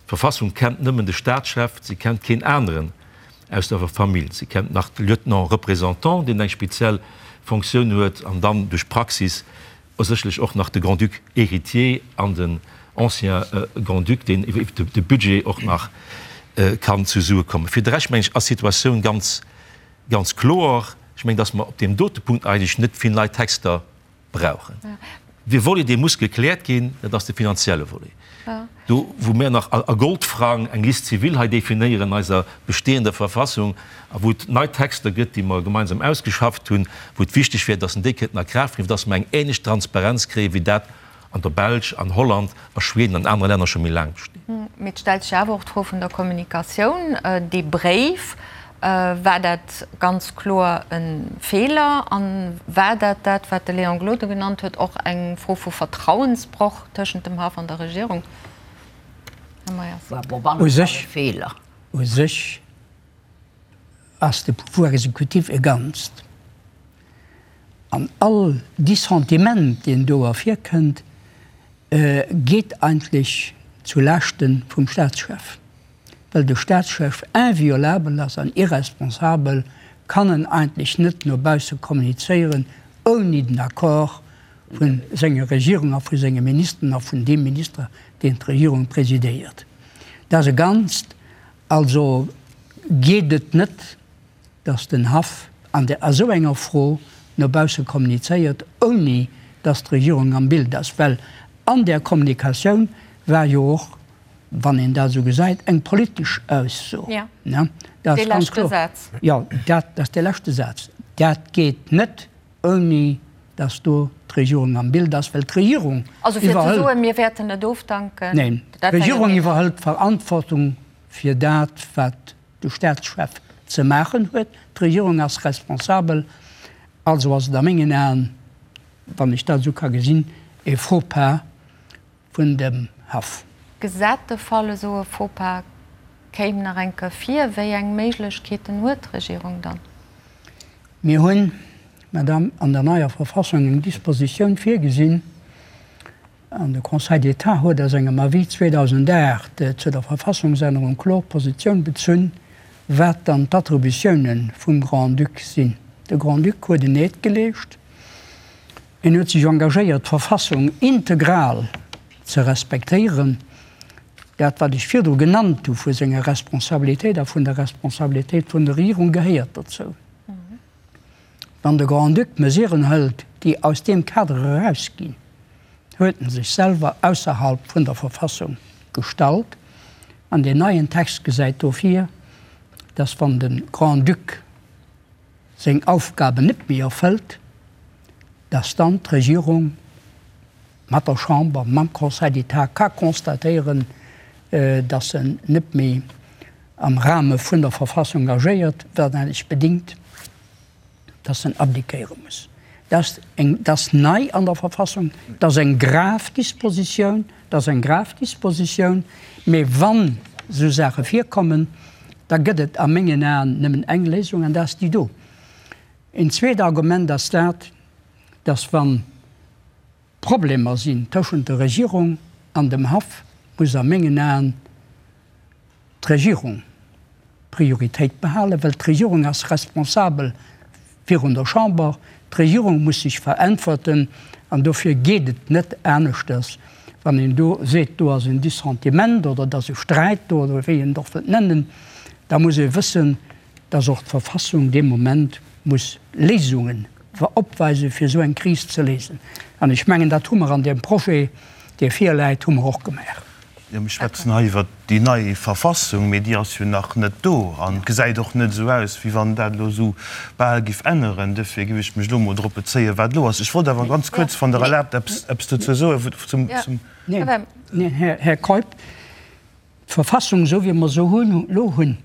D'Verfassung kennt nëmmen de Staatschef, se kennt keen aneren aus der Famill. Se kennt nach de Lieutenant représentant, deen eng speziell Fonctioun huet, an dann duerch d'Praxis Sécherlech och nach de Grand-Duc héritier an den ancien Grand-Duc, deen iwwer de Budget och nach kann zu Sue kommen. Fir de Rescht, mengen ech, ass d'Situatioun ganz, ganz kloer. Ech mengen, dass mer op deem dote Punkt eigentlech net vill nei Texter brauchen. Dee Volet, dee muss gekläert ginn, dat ass de finanzielle Volet. Do wou mir nach a Goldfrang eng Liste civile hei definéieren an eiser bestehender Verfassung a wou et nei Texter gëtt, déi mer gemeinsam ausgeschafft hunn, wou et wichteg wär, dass en déi kënnten a Kraaft bréngen, dass mer eng ähnlech Transparenz kréien, wéi dat an der Belsch, an Holland, a Schweden an anere Länner scho méi laang besteet. Mee et stellt sech awer och d'Fro vun der Kommunikatioun. Dee Bréif, war dat ganz kloer e Feeler? A war dat dat, wat de Léon Gloden genannt huet, och eng Fro vu Vertrauensbroch tëschent dem Haff an der Regierung? Här Meyers. U sech, u sech ass de Pouvoir exécutif e Ganzt. An all Dissentiment, deen do ervirkënnt, geet eigentlech zu Laaschte vum Staatschef. Well de Staatschef inviolabel ass an irresponsabel, kann en eigentlech net no bausse kommunizéieren, ouni den Accord vu senger Regierung a vu senge Ministeren a vun deem Minister, deen d'Regierung presidéiert. Dat ass e Ganzt. Also geet et net, datt den Haff an der esou enger Fro no bausse kommunizéiert, ouni datt d'Regierung am Bild ass. Well an där Kommunikatioun war jo och. wann een dat esou gesäit, eng politesch Ausso. Dat ass ganz kloer. Jo, dat ass dee leschte Saz. Dat geet net, ouni datt do d'Regierung am Bild ass, well d'Regierung iwwerhëlt. Also fir ze soen, mir wäerten net ofdanken. Neen, d'Regierung iwwerhëlt d'Verantwortung fir dat, wat de Staatschef ze maachen huet. D'Regierung ass responsabel. Also ass et a mengen Aen, wann ech dat esou ka gesinn, e Faux-pas vun dem Haff. Gesat de Fall, esou e Faux-pas kéim nach eng Kéier vir, wéi eng Méiglechkeeten huet d'Regierung dann? Mir hunn, Madame, an der neier Verfassung eng Dispositioun virgesinn, an de Conseil d'État huet a sengem Avis 2008 zu der Verfassungsännerung kloer Positioun bezunn, wat dann d'Attributiounen vum Grand-Duc sinn. De Grand-Duc huet en Eed geleescht. Hien huet sech engagéiert, d'Verfassung integral ze respektéieren. Dat, wat ech virdru genannt hu vu senger Responsabilitéit a vun der Responsabilitéit vun der Regierung, gehéiert dozou. Wann de Grand-Duc Mesuren hëlt, déi aus deem Kader erausginn, huet en sech selwer ausserhalb vun der Verfassung gestallt. An deen neien Text gesäit do vir, dass wann de Grand-Duc seng Aufgaben net méi erfëllt, dass dann d'Regierung mat der Chamber, mam Conseil d'État ka constatéieren, dass en net méi am Rahme vun der Verfassung agéiert, wat eigentlech bedingt, dass en abdiquéiere muss. Dat ass eng, dat ass nei an der Verfassung, dat ass eng grav Dispositioun, dat ass eng grav Dispositioun, mee wann esou Saache virkommen, da gëtt et a mengen Aen nëmmen eng Léisung, an dat ass déi do. Een zweet Argument ass dat, dass wa Problemer sinn tëschent der Regierung an dem Haff, muss a mengen Aen d'Regierung Prioritéit behalen, well d'Regierung ass responsabel virun der Chamber, d'Regierung muss sech veräntwerten an dofir geet et net aneschters, wann een do seet, do ass en Dissentiment oder et ass e Sträit do oder wéi een et och wëllt nennen, da muss ee wëssen, dass och d'Verfassung dee Moment muss Léisungen opweisen, fir esou eng Kris ze léisen. An ech mengen, dat hu mer an deem Projet, dee virläit, hu mer och gemaach. Jo, mir schwätzen hei iwwert déi nei Verfassung, mee déi ass jo nach net do an et gesäit och net esou aus, wéi wann dat elo esou bal giff änneren. Duerfir giff ech mech elo emol drop bezéien, wat elo ass. Ech wollt awer ganz kuerz, wann Der erlaabt, eppes, eppes dozou soen zum, zum. Neen, neen, Här Keup, d'Verfassung, esou wéi mer se elo hunn,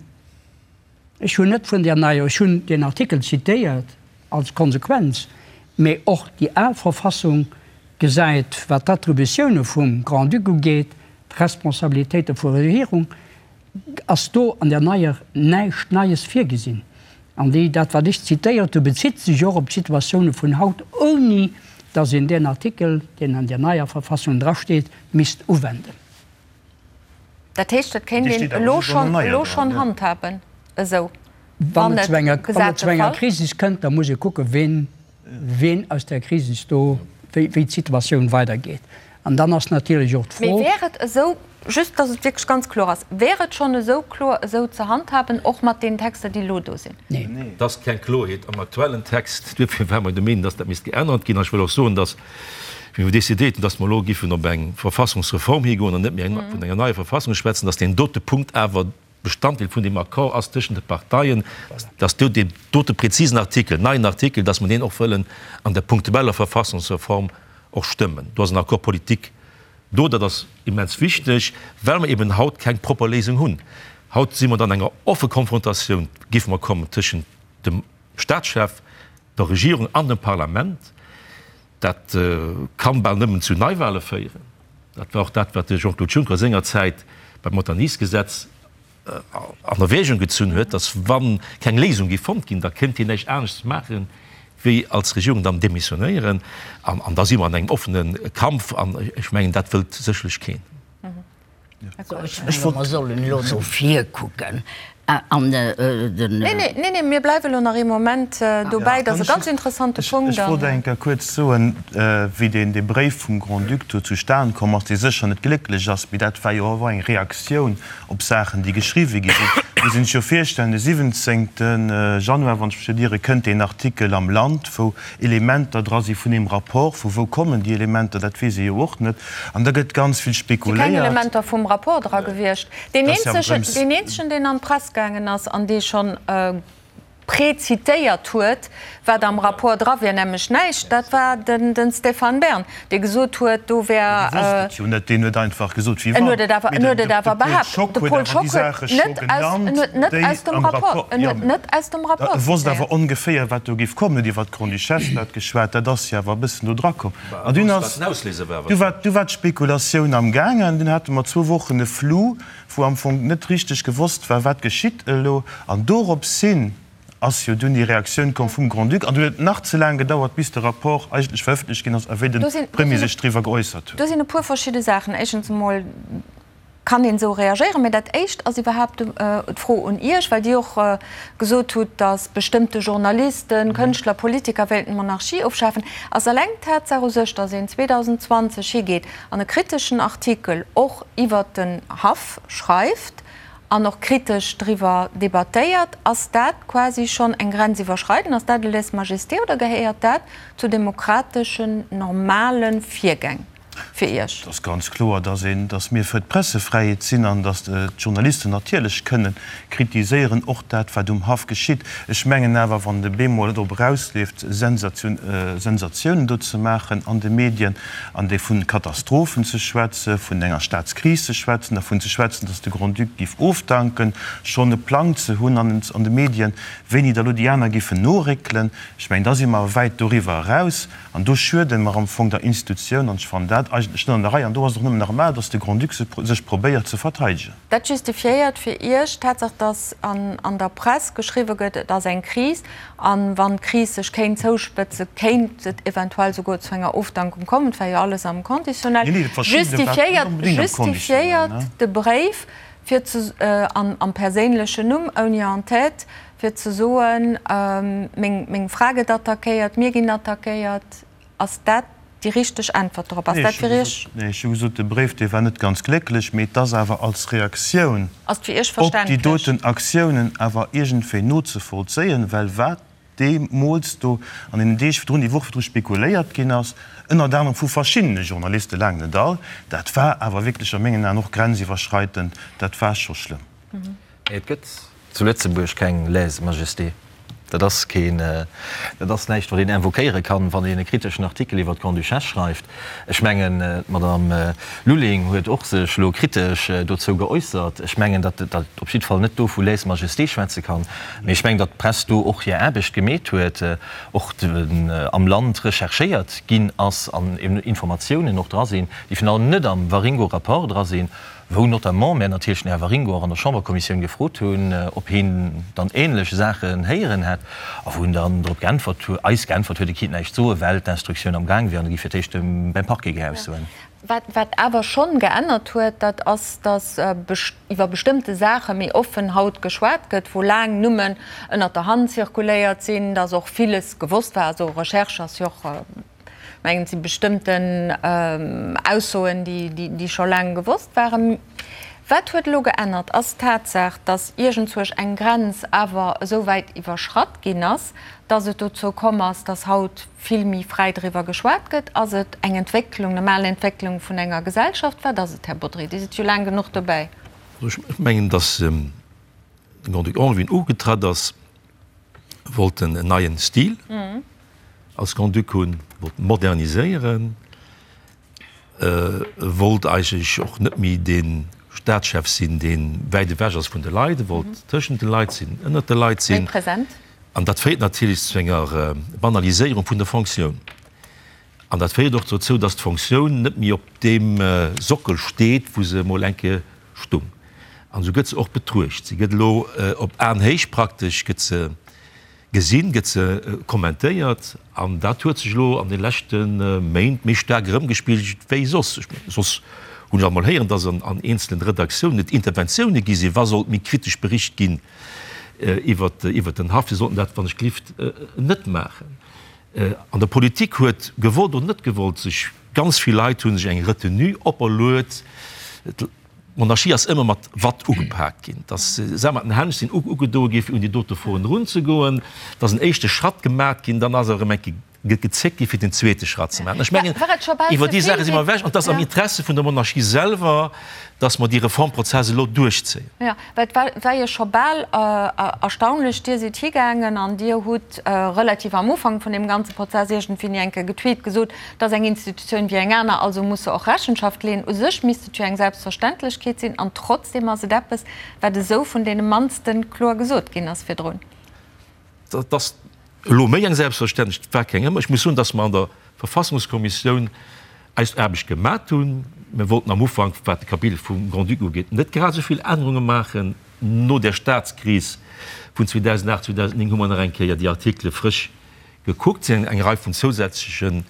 Ech hunn net vun där neier, ech hunn deen Artikel zitéiert als Konsequenz, mee och déi al Verfassung gesäit, wat d'Attributioune vum Grand-Duc ugeet, d'Responsabilitéite vu Regierung, ass do an där neier näischt Neies virgesinn. An déi, dat wat ech zitéiert hu bezitt sech och op d'Situatioune vun haut, ouni datt een deen Artikel, deen an där neier Verfassung drasteet, misst uwenden. Dat heescht, et kéint een elo schonn, elo schonn handhaben esou, wann et zu enger, zu enger Krisis kënnt, da muss ee kucken, ween, ween aus där Krisis do, wéi, wéi d'Situatioun weidergeet. An dann ass natierlech och d'Fro. Mee wär et esou, just datt et wierklech ganz kloer ass, wär et schonn esou kloer esou ze handhaben, och mat deenen Texter, déi elo do sinn? Neen. Et ass keng Kloerheet am aktuellen Text. Duerfir ware mer der Meenung, datt dat misst geännert ginn. An ech wëll och soen, datt Wéi mer décidéiert hunn, dass mer elo giffen op eng Verfassungsreform higoen an net méi vun enger neier Verfassung schwätzen, dass deen dote Punkt awer Bestanddeel vun deem Accord ass tëschent de Parteien, dass do deen dote präzisen Artikel, neien Artikel, dass mer deen och wëllen an der punktueller Verfassungsreform och stëmmen. Do ass en Accord politique do. Dat ass immens wichteg, well mer eben haut keng propper Léisung hunn. Haut si mer dann enger offe Konfrontatioun, géife mer kommen, tëschent dem Statschef, der Regierung an dem Parlament. Dat kann bal nëmmen zu Neiwahle féieren. Dat war och dat, wat de Jean-Claude Juncker sengerzäit beim Montagny-Gesetz an Erwägung gezunn huet, datt wa keng Léisung géif fonnt ginn, da kéint hien näischt aneschts maachen, wéi als Regierung dann demissionéieren. An da si mer an engem offene Kampf an ech mengen, dat wëllt sécherlech keen. Ech menge mer sollen elo no vir kucken an den. Neen, neen, neen, mir bleiwe elo nach ee Moment dobäi. Dat ass e ganz interessante Punkt. Ech wollt eng Kéier kuerz soen, wéi deen dee Bréif vum Grand-Duc do zustan komm ass, dee sécher net glécklech ass, mee dat war jo awer eng Reaktioun op Saachen, déi geschriwwe gi sinn. Muss een sech jo virstellen, de 17. Januar, wann ech mech net iere, kënnt deen Artikel am Land, wou Elementer dra si vun deem Rapport. Vu wou kommen déi Elementer, dat weess ee jo och net. An da gëtt ganz vill Et si keng spekuléiert. Elementer vum Rapport dra gewiescht. Deen Dat ass jo awer eenzegen, drëms. deen eenzegen, deen an d'Press gaangen ass an dee schonn prezitéiert huet, wat am Rapport dra wier, nämlech näischt, dat war den Stéphane Bern, dee gesot huet, do wär. Dee wosst et jo net, deen huet einfach gesot, wéi En wann. huet et awer, Mee en huet et de awer Paul behaapt. Schock De huet Paul awer déi Schock huet Saache scho net aus, en genannt, huet net déi aus dem am Rapport, Rapport, en jo, huet net aus dem Rapport e wosst zitéiert. awer ongeféier, wat do géif kommen, huet iwwer d'Grande-Duchesse dat geschwat, dat ass jo awer e bëssen do dra komm. An dunn ass, du war, du war d'Spekulatioun am gaangen, dunn hate mer zwou Wochen e Flou, wou am Fong net richteg gewosst war, wat geschitt elo. An doropshin ass jo dunn déi Reaktioun komm vum Grand-Duc. An dunn huet et nach ze laang gedauert, bis de Rapport eigentlech verëffentlecht ginn ass a wéi de Premier sech driwwer geäussert huet. Do sinn e puer verschidde Saachen. Éischtens emol kann een esou reagéieren. Mä dat Éischt ass iwwerhaapt d'Fro un Iech, well Dir och gesot hutt, datt bestëmmte Journalisten, Kënschtler, Politiker wéilten d'Monarchie ofschafen. Ass eleng d'Tatsaach u sech, datt een 2020 higeet an e kriteschen Artikel och iwwert den Haff schreift an och kritesch driwwer debattéiert, ass dat quasi schonn eng Grenz iwwerschreiden? Ass dat e Lèse-majesté oder gehéiert dat zu demokrateschen, normale Virgäng fir Iech? Et ass ganz kloer, dass een, dass mir fir d'Pressefräiheet sinn an dass d'Journalisten natierlech kënnen kritiséieren, och dat, wat um Haff geschitt. Ech mengen awer, wann de bemol drop erausleeft, Sensatiounen do ze maachen an de Medien, an déi vun Katastrophen ze schwätzen, vun enger Staatskris ze schwätzen, dervun ze schwätzen, datt de Grand-Duc giff ofdanken, schonn e Plang ze hunn an de Medien, wéini da lo déi aner giffen noréckelen, ech mengen, da si mer wäit doriwwer eraus an do schuede mer am Fong der Institutioun an ech fannen dat eigentlech net an der Rei an do ass et och nëmmen normal, datt de Grand-Duc sech probéiert ze verteidegen. Dat justifiéiert fir Iech d'Tatsaach, datt an der Press geschriwwe gëtt, et ass eng Kris, a wann d'Kris sech kéint zouspëtzen, kéint et eventuell souguer zu enger Ofdankung kommen. Et war jo alles am Conditionnel. Justifiéiert de Bréif fir ze, am perséinlechen Numm, ouni En-tête, fir ze soen, meng Fra gëtt attackéiert, mir ginn attackéiert? Ass dat déi richteg Äntwert dorop? Ass dat fir Iech. Nee, ech hu gesot, de Bréif, dee war net ganz glécklech, mee et ass awer als Reaktioun Ass et fir Iech op déi verständlech? doten Aktiounen awer iergendwéi nozevollzéien, well wat deemools do an deenen Deeg virdrun, déi Woch virdru spekuléiert ginn ass, ënnert anerem vu verschiddene Journalisten, laang net all, dat war awer wierklech a mengen Aen och grenziwwerschreitend, dat war scho schlëmm. Mee et gëtt zu Lëtzebuerg keng Lèse-majesté. Dat ass keen, dat ass näischt, wat een invoquéiere kann, wann een e kriteschen Artikel iwwer d'Grande-Duchesse schreift. Ech mengen, d'Madame Lulling huet och sech elo kritesch dozou geäussert. Ech mengen, datt dat op jidde Fall net do vu Lèse-majesté schwätze kann. Mee ech mengen, datt d'Press do och hir Aarbecht gemeet huet, och am Land recherchéiert ginn ass an Informatiounen och dra sinn, déi virun allem net am Waringo-Rapport dra sinn. wou notamment mär natierlech den Här Waringo och an der Chamberkommissioun gefrot hunn, ob hien dann ähnlech Saachen héieren hätt, a wou en dann drop geäntwert huet, eis geäntwert huet, e kinnt näischt soen, well d'Instruktioun am Gaang wier an e giff fir d'éischt beim Parquet geaussoen. Wat, wat awer schonn geännert huet, dat ass, datt iwwer bestëmmte Saache méi offen haut geschwat gëtt, wou laang nëmmen ënnert der Hand zirkuléiert sinn, datt och villes gewosst war. Also Recherche ass jo och Mengen, et si bestëmmten Aussoen, déi scho laang gewosst waren. Wat huet elo geännert, ass d'Tatsaach, datt iergendzuerch eng Grenz awer esou wäit iwwerschratt ginn ass, datt et dozou komm ass, datt haut vill méi fräi driwwer geschwat gëtt. Ass et eng Entwécklung, normal Entwécklung vun enger Gesellschaft? Wat ass et, Här Bodry? Dir sidd jo laang genuch dobäi. Ech mengen, datt de Grand-Duc Henri, wéi en ugetratt ass, wollt en neien Stil als Grand-Duc hunn, wollt moderniséieren, wollt eigentlech och net méi dee Staatschef sinn, dee wäit ewech ass vun de Leit, e wollt tëschent de Leit sinn, ënnert de Leit sinn. Méi present. An dat féiert natierlech zu enger Banaliséierung vun der Fonctioun. An dat féiert och dozou, dass d'Fonctioun net méi op deem Sockel steet, wou se emol eng Kéier stung. An esou gëtt se och betruecht. Si gëtt elo op Aenhéicht praktesch gëtt se gesinn, gëtt se kommentéiert. An dat huet sech elo an de leschte Méint méi staark erëmgespigelt wéi soss. Ech mengen, soss hunn ech alt mol héieren, dass an eenzelen Redaktiounen et Interventioune gi sinn, wa sollt méi kritesch bericht ginn iwwert den Haff. Si sollten dat, wann ech gelift, net maachen. An der Politik huet, gewollt oder net gewollt, sech ganz vill Leit hu sech eng Retenue operluet. D'Monarchie ass ëmmer mat Watt ugepaakt ginn, dass se mat den Hänn sinn ugedoe gi fir un déi dote Froen erunzegoen, et ass en éischte Schratt gemat ginn, dann ass erëm eng Kéier gezéckt gi fir den zweete Schratt ze maachen. Ech mengen, iwwer déi Saache si mer ewech an et ass am Interesse vun der Monarchie selwer, dass mer dee Reformprozess elo duerchzéien. Jo, well et war war jo scho bal erstaunlech, Dir sidd higaangen an Dir hutt relativ am Ufank vun deem ganze Prozess iergendwéini eng Kéier getweet, gesot, Et ass eng Institutioun wéi eng aner, also muss se och Rechenschaft leeën. U sech misst et jo eng Selbstverständlechkeet sinn, an trotzdeem ass et eppes, wat esou vun deene mannste kloer gesot ginn ass virdrun. Dat ass elo méi eng Selbstverständlechkeet, et war keng ëmmer. Ech muss soen, dass mer an der Verfassungskommissioun eis Aarbecht gemat hunn. Mir wollten am Ufank, wat de Kapitel vum Grand-Duc ugeet, net grad esou vill Ännerunge maachen. No der Staatskris vun 2008, 2009 hu mer nach eng Kéier déi Artikele frësch gekuckt, sinn eng Rei vun zousätzlechen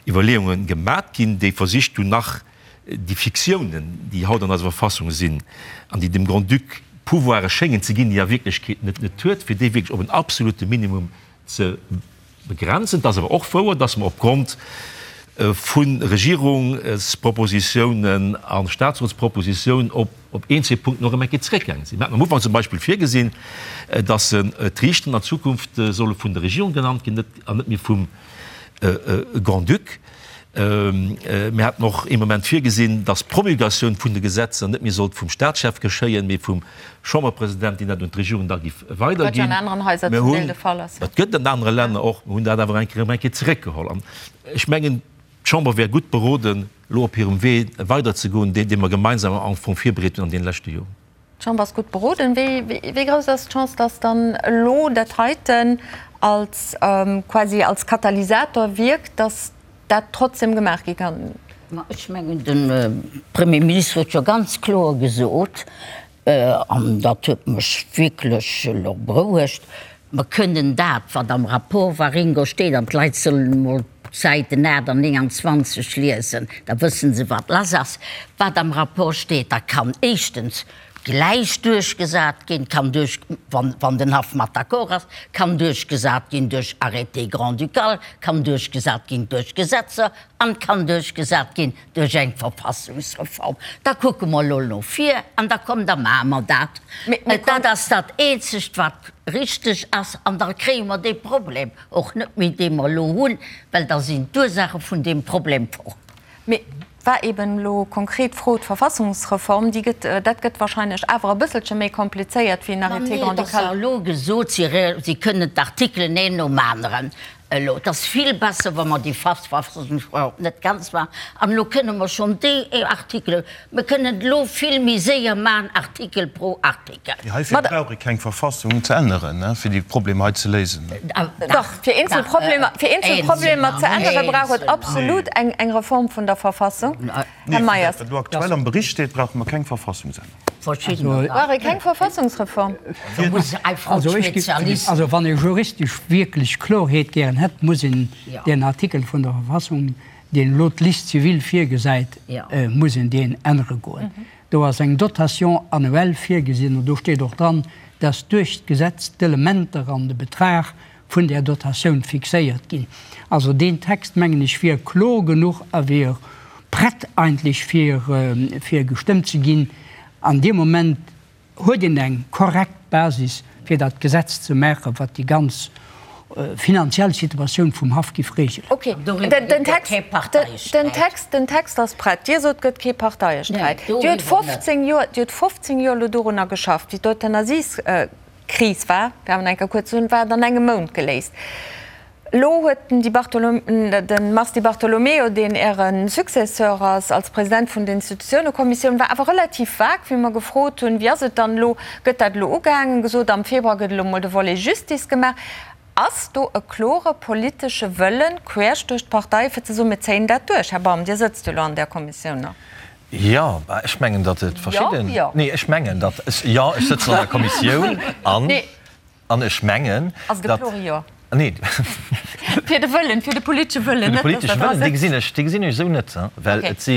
Iwwerleeunge gemat ginn, déi versicht hunn, nach déi Fiktiounen, déi haut an eiser Verfassung sinn an déi dem Grand-Duc Pouvoire schéngen ze ginn, déi e a Wierklechkeet net net huet, fir déi wierklech op en absolute Minimum ze begrenzen. Et ass awer och wouer, dass mer opgrond vu Regierungspropositiounen a Statsrotspropositiounen op op eenzel Punkten och erëm eng Kéier zeréckgaange sinn. Mir haten am Ufank zum Beispill virgesinn, dass d'Riichteren an Zukunft solle vun der Regierung genannt ginn an net méi vum Grand-Duc. Mir haten och ee Moment virgesinn, dass d'Promulgatioun vun de Gesetzer net méi sollt vum Staatschef geschéien, mee vum Chamberpresident, deen dat un d'Regierung da giff weiderginn. Mir hunn, dat gëtt et an anere Länner och, mir hunn dat awer eng Kéier erëm eng Kéier zeréckgeholl. An ech mengen, d'Chamber wär gutt beroden, elo op hirem Wee weiderzegoen, deen, dee mer gemeinsam am Fong virbereet hunn an deene leschte Joren. D'Chamber ass gutt beroden. Wéi grouss ass d'Chance, dass dann elo dat heiten als quasi als Katalysator wierkt, dass dat trotzdem gemaach gi kann? Ma ech mengen, de Premier Ministre huet jo ganz kloer gesot, an dat huet mech wierklech elo berouegt, Mer kënnen dat, wat am Rapport Waringo steet, an d'Leit sollen emol d'Säiten 8 an 29 liesen, da wësse se, wat lass ass, wat am Rapport steet, da kann éischtens gläich duerchgesat ginn, kann duerch, wann, wann den Haff mat d'accord ass, kann duerchgesat ginn duerch Arrêté grand-ducal, kann duerchgesat ginn duerch Gesetzer an kann duerchgesat ginn duerch eng Verfassungsreform. Da kucke mer elo no vir an da komm, da maache mer dat. Dat ass dat Eenzegt, wat richteg ass. An da kréie mer dee Problem och net méi, dee mer elo hunn, well da sinn d'Ursaache vun deem Problem fort. Mee war eben elo konkret d'Fro, d'Verfassungsreform, déi gëtt, dat gëtt wahrscheinlech awer e bësselche méi komplizéiert wéi en Arrêté grand-ducal. Ma nee, et ass jo elo gesot, si kënnen d'Artikelen een nom aneren Elo, et ass vill besser, wa mer déi Verfassungsreform net ganz maachen. An elo kënne mer schonn déi Artikelen, mer kënnen et elo vill méi séier maachen, Artikel pro Artikel. Mee heifir brauch ee keng Verfassung ze änneren, fir déi Problemer hei ze léisen. Dach, fir eenzel Problemer, fir eenzel Problemer ze änneren, brauch et absolut eng Reform vun der Verfassung. Här Meyers. Wat elo aktuell am Bericht steet, brauche mer keng Verfassungsännerung. Brauch ee keng Verfassungsreform? Also wann ee juristesch wierklech Klorheet gären hätt, muss een deen Artikel vun der Verfassung, deen elo d'Liste civile virgesäit, muss een deen ännere goen. Do ass eng Dotation annuelle virgesinn an do steet och dran, dass duerch d'Gesetz d'Elementer an de Betrag vun där Dotatioun fixéiert ginn. Also deen Text, mengen ech, wier kloer genuch a wier prett eigentlech fir, fir gestëmmt ze ginn. An deem Moment huet een eng korrekt Basis, fir dat Gesetz ze maachen, wat déi ganz finanziell Situatioun vum Haff giff regelen. Ok, den Text, den Text, den Text ass prett. Dir sot, et gëtt kee Parteiesträit. Dir hutt 15 Joer, Dir hutt 15 Joer elo dorunner geschafft, wéi d'Euthanasies, Kris war, fir awer nach eng Kéier kuerz ze soen, war et an engem Mount geléist. Elo huet den Di Bartolomeo, de Mars Di Bartolomeo, deen Äre Successeur ass als President vun der Institutiounekommissioun, war awer relativ vag, wéi mer gefrot hunn, wéi ass et dann elo, gëtt dat elo ugehaangen, gesot, am Februar gëtt elo mol de Volet Justice gemaach. Ass do e klore politesche Wëllen, queesch duerch d'Parteien, fir ze soen, mir zéien dat duerch? Här Baum, Dir sëtzt jo elo an där Kommissioun nach. Jo, ech mengen, datt et verschidden. Jo, jo. Nee, ech mengen, datt ech, jo, ech sëtzen an der Kommissioun an, an ech mengen, Ass et e klore Jo? Nee. Fir de Wëllen, fir de politesche Wëllen, net, datt Der dra sëtzt. Dee gesinn ech, dee gesinn ech esou net, well et si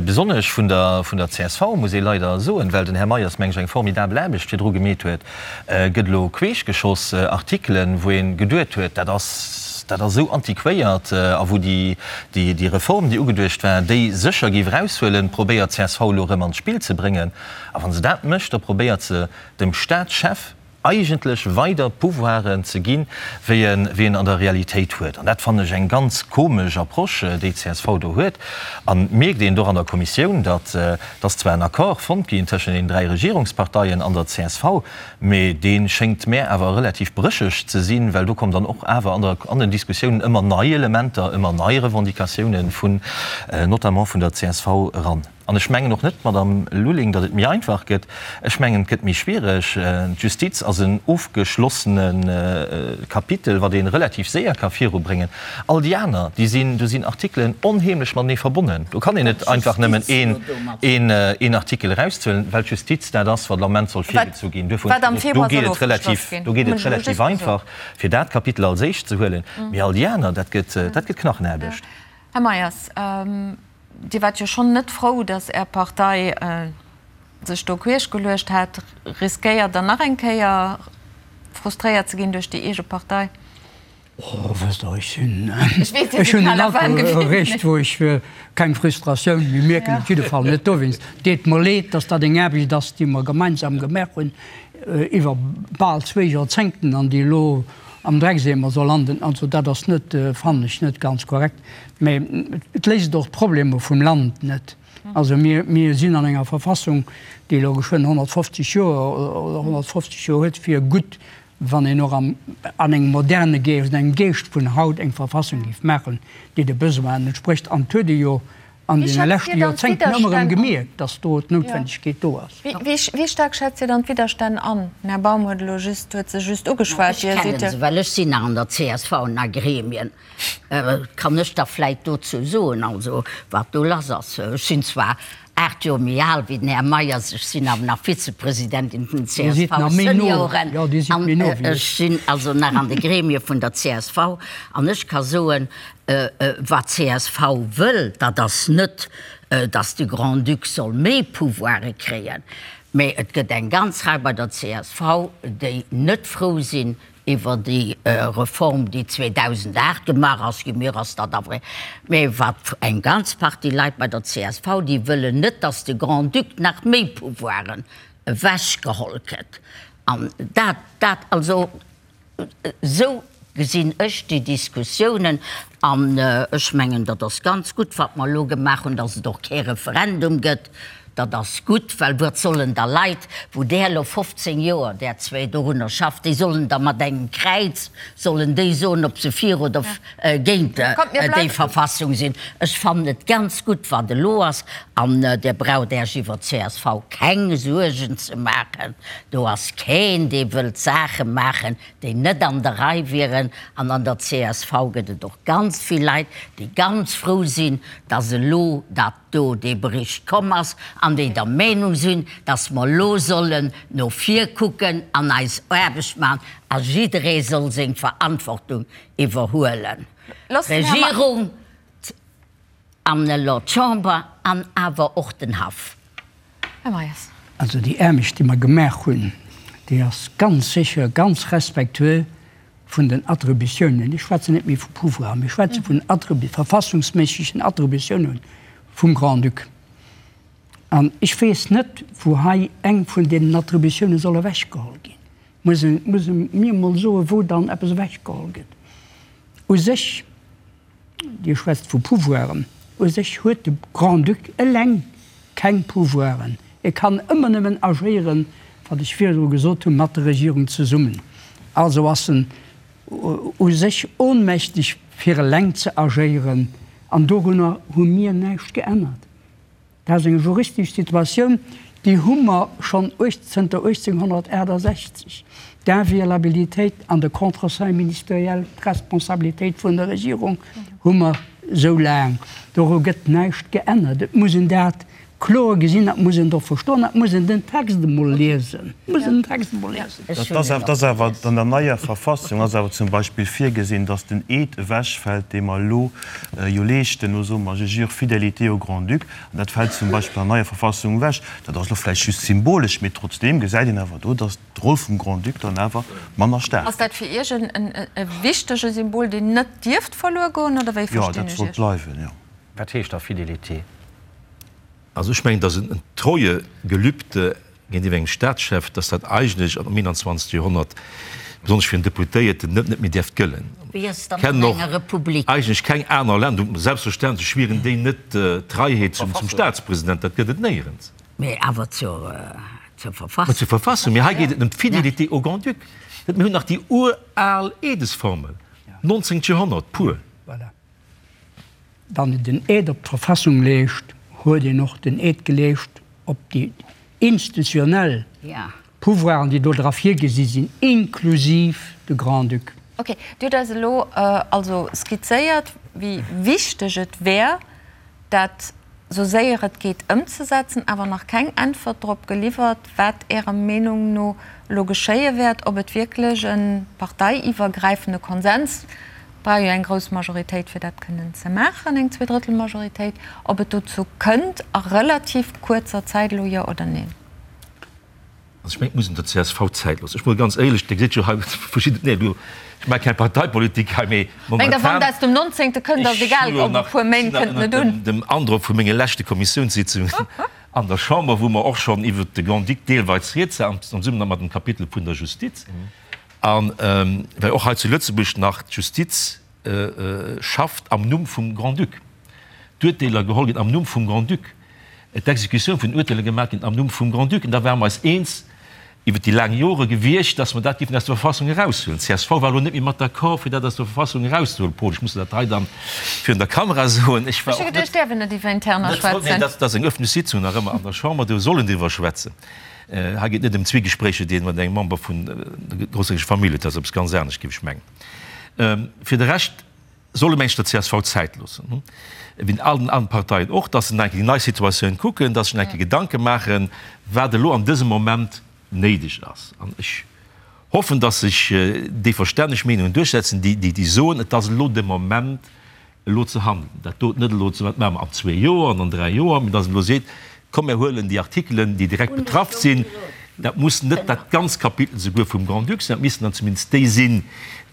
besonnesch vun der, vun der csv, muss ee leider soen, well den Här Meyers, meng ech, eng formidabel Aarbecht virdru gemeet huet, gëtt elo queeschgeschoss, Artikelen, wou ee geduet huet, dat ass. ass, dat ass esou antiquéiert, a wou déi, déi Reform, déi ugeduecht war, déi sécher géif eraushuelen, probéiert d'CSV elo erëm an d'Spill ze bréngen. A wa se dat mécht, da probéiert se dem Staatschef eigentlech weider Pouvoiren ze ginn, wéi en, wéi en an der Realitéit huet. An dat fannen ech eng ganz komesch Approche, déi d'CSV do huet. An et mierkt een och an der Kommissioun, datt, datt zwar en Accord fonnt ginn tëschent den 3 Regierungsparteien an der csv, Mee dee schéngt mär awer relativ brécheg ze sinn, well do kommen dann och awer an der, an den Diskussiounen ëmmer nei Elementer, ëmmer nei Revendicatiounen vun, notamment vun der csv eran. An ech mengen och net, Madamm Lulling, datt et méi einfach gëtt. Ech mengen, et gëtt méi schwiereg. D'Justiz ass en ofgeschlossene Kapitel, wat ee relativ séier ka virubréngen. All déi aner, déi sinn, do sinn Artikelen onheemlech matenee verbonnen. Do kann een net einfach nëmmen een, een, een Artikel erauszuelen, well d'Justiz dat ass, wat am Ament soll virgezu ginn. Duerfir hunn ech gesot, do geet et relativ, do geet et relativ einfach, fir dat Kapitel als éischt ze huelen. Mee all déi aner, dat gëtt, dat gëtt Knachenaarbecht. Här Meyers, Dir waart jo schonn net frou, datt Är Partei sech do queesch geluecht hat. Riskéiert Der nach eng Kéier frustréiert ze ginn duerch déi eege Partei? Oh, wësst Der, ech sinn, ech hunn en Alter erreecht, wou ech keng Frustratioun méi mierken, op jidde Fall net dowéinst. Deet mer leed, dass dat eng Aarbecht ass, déi mer gemeinsam gemaach hunn iwwer bal zwéi Joerzéngten an déi elo am Dreckseemer soll landen. Also dat ass net, fannen ech, net ganz korrekt. Mä et léist och d'Problemer vum Land net. Also mir, mir sinn an enger Verfassung, déi elo geschwënn 150 Joer oder 150 Joer huet, fir gutt Wann een och an engem moderne Geescht, an engem Geescht vun haut eng Verfassung géif maachen, déi de Besoinen entsprécht, an et huet ee jo an deene leschte Joerzéngten ëmmer erëm gemierkt, datt do d'Noutwendegkeet do ass. Wéi staark schätzt Dir dann d'Widderstänn an? Den Här Baum huet elo just, huet se just ugeschwat. Ech kennen se, well ech sinn nach an der csv an a Gremien. Kann ech da vläit dozou soen, also wat do lass ass. Ech sinn zwar 8 Joer méi al wéi den Här Meyers, ech sinn awer nach Vizepresidentin vun den CSV-Senioren an ech sinn also nach an de Gremie vun der csv an ech ka soen, wat d'CSV wëll, dat ass net, datt de Grand-Duc soll méi Pouvoire kréien, mä et gëtt eng ganz Rei bei der csv, déi net frou sinn Iwwer déi Reform, déi 2008 gemaach ass ginn, mir ass dat awer, mä wat eng ganz Partie Leit bei der csv, déi wëllen net, datt de Grand-Duc nach méi Pouvoiren ewechgeholl kritt. An dat, dat, also esou gesinn ech déi Diskussiounen. An ech mengen, dat ass ganz gutt, wat mer elo gemaach hunn, datt et och kee Referendum gëtt. Dat ass gutt, well wat sollen da Leit, wou där elo 15 Joer, där zwéi dorunner schafft, déi sollen da mat engem Kräiz, sollen déi soen, ob se fir oder géint déi Verfassung sinn. Ech fannen et ganz gutt, wat elo ass. An Dir braucht Äech iwwer csv keng Suergen ze maachen. Do ass keen, dee wëllt Saache maachen, déi net an der Rei wieren. An an der csv gëtt et och ganz vill Leit, déi ganz frou sinn, dass elo dat do dee Bericht komm ass, an déi der Meenung sinn, dass mer elo sollen no vir kucken an eis Aarbecht maachen a jidderee soll seng Verantwortung iwwerhuelen, d'Regierung an elo d'Chamber an awer och den Haff. Här Meyers. Also déi Aarbecht, déi mer gemaach hunn, déi ass ganz sécher ganz respektueux vun den Attributiounen, ech schwätzen net méi vu Pouvoir, mee ech schwätze vun verfassungsméissegen Attributiounen vum Grand-Duc. An ech weess net, wou hei eng vun deenen Attributiounen soll ewechgeholl ginn. Muss e, muss e mir emol soen, wou dann eppes ewechgeholl gëtt. U sech Dir schwätzt vu Pouvoiren. U sech huet de Grand-Duc eleng keng Pouvoiren. E kann ëmmer nëmmen agéieren, wat ech virdru gesot hunn, mat der Regierung zesummen. Also ass en u sech ohnmächteg, fir eleng ze agéieren. An dorunner hu mir näischt geännert. Dat ass eng juristesch Situatioun, déi hu mer schonn zënter 1868, d'Inviolabilitéit an de Contreseing ministériel, d'Responsabilitéit vun der Regierung hu mer esou laang. Doru gëtt näischt geännert. Et muss een dat. kloer gesinn, dat muss een och verstoen, dat muss een den Text emol liesen, muss een den Text emol liesen. Dat ass awer an der neier Verfassung ass awer zum Beispill virgesinn, datt den Eed ewechfält, dee mer elo jo leeschten, elo soe mer, je jure fidélité au Grand-Duc, an dat fält zum Beispill an der neier Verfassung ewech. Dat ass elo vläicht just symbolesch, mee trotzdeem gesäit een awer do, datt d'Roll vum Grand-Duc dann awer manner staark Ass dat fir Iech e wichtege Symbol, deen net dierft verluer goen, oder wéi Jo, verstinn dat ech sollt Iech? bleiwen, jo. Wat heescht da Fidélité? Also ech mengen, datt en Treuegelübde géintiwwer engem Staatschef, datt dat eigentlech am 21. Joerhonnert, besonnesch fir en Deputéierten, net net méi däerft gëllen. Wéi ass et Ech dann kennen an och enger Republik? eigentlech keng aner Länder, selbstverständlech schwieren déi net d'Treiheet zum Staatspresident, dat gëtt et néierens. Mee awer zur Verfassung. Zur Verfassung, mee hei geet et ëm d'Fidélité au Grand-Duc. Mir hunn nach déi ural Eedesformel, 19. Joerhonnert pur. Voilà. Wann een den Eed op d'Verfassung leescht, huet een och den Eed geleescht op déi institutionell Pouvoiren, déi do dra virgesi sinn, inklusiv de Grand-Duc. Ok, Dir hutt eis elo also skizzéiert, wéi wichteg et wär, dat sou séier et geet ëmzesetzen, awer nach keng Äntwert drop geliwwert, wat Ärer Meenung no elo geschéie wäert, ob et wierklech e parteiiwwergräifende Konsens, et brauch jo eng grouss Majoritéit fir dat kënnen ze maachen, eng Zweedrëttelmajoritéit, ob et dozou kënnt a relativ kuerzer Zäit elo, jo oder neen? Also ech mengen, et muss een der csv Zäit loossen. Ech mol ganz éierlech, Dir gesitt jo hei verschidden, nee, elo, ech maache keng Parteipolitik hei, mee Mengt Der, wann momentan, et aus dem Nonzéngte kënnt, ass ech egal, hu jo ob e nach, puer Méint, sinn nach kënnt net ënnert un. dem, dem Androck vu menge leschte Kommissiounssitzungen an der Chamber, wou mer och schonn iwwert de Grand-Duc deelweis rieds war, am Zesummenhang mat dem Kapitel vun der Justiz, a well och hei zu Lëtzebuerg nach d'Justiz schafft am Numm vum Grand-Duc, d'Urteeler geholl ginn am Numm vum Grand-Duc, d'Exekutioun vun den Urteeler gemaach ginn am Numm vum Grand-Duc. An da ware mer eis eens iwwer déi laang Jore gewiescht, dass mer dat géifen aus der Verfassung eraushuelen. D'CSV war elo net méi mat d'accord, fir dat aus der Verfassung erauszehuelen. Paul, ech muss dat hei dann virun der Kamera soen. Ech war Ech hu och net, geduecht, däerf een net iwwer Interner net voll, schwätzen. nee, dat ass eng öffentlech Sitzung nach ëmmer an der Chamber, do soll een driwwer schwätzen. Hei geet et net ëm Zwiegespréicher, déi een mat engem Member vun der grossherzoglecher Famill huet. Dat ass eppes ganz anescht, géif ech mengen. Fir de Rescht solle mengen ech der csv Zäit loossen, wéi allen aneren Parteien och, datt se nach eng Kéier déi nei Situatioun kucken, datt se sech nach eng Kéier Gedanke maachen, wat elo an dësem Moment néideg ass. An ech hoffen, datt sech déi verstänneg Meenungen duerchsetzen, déi déi soen, et ass elo de Moment, elo ze handeln, dat doten net elo ze, wat maache mer an zwee Joer an an dräi Joer, mee datt een elo seet, komm mir huelen déi Artikelen, déi direkt betraff sinn, dat muss net dat ganz Kapitel souguer vum Grand-Duc sinn, dat missten dann zumindest déi sinn,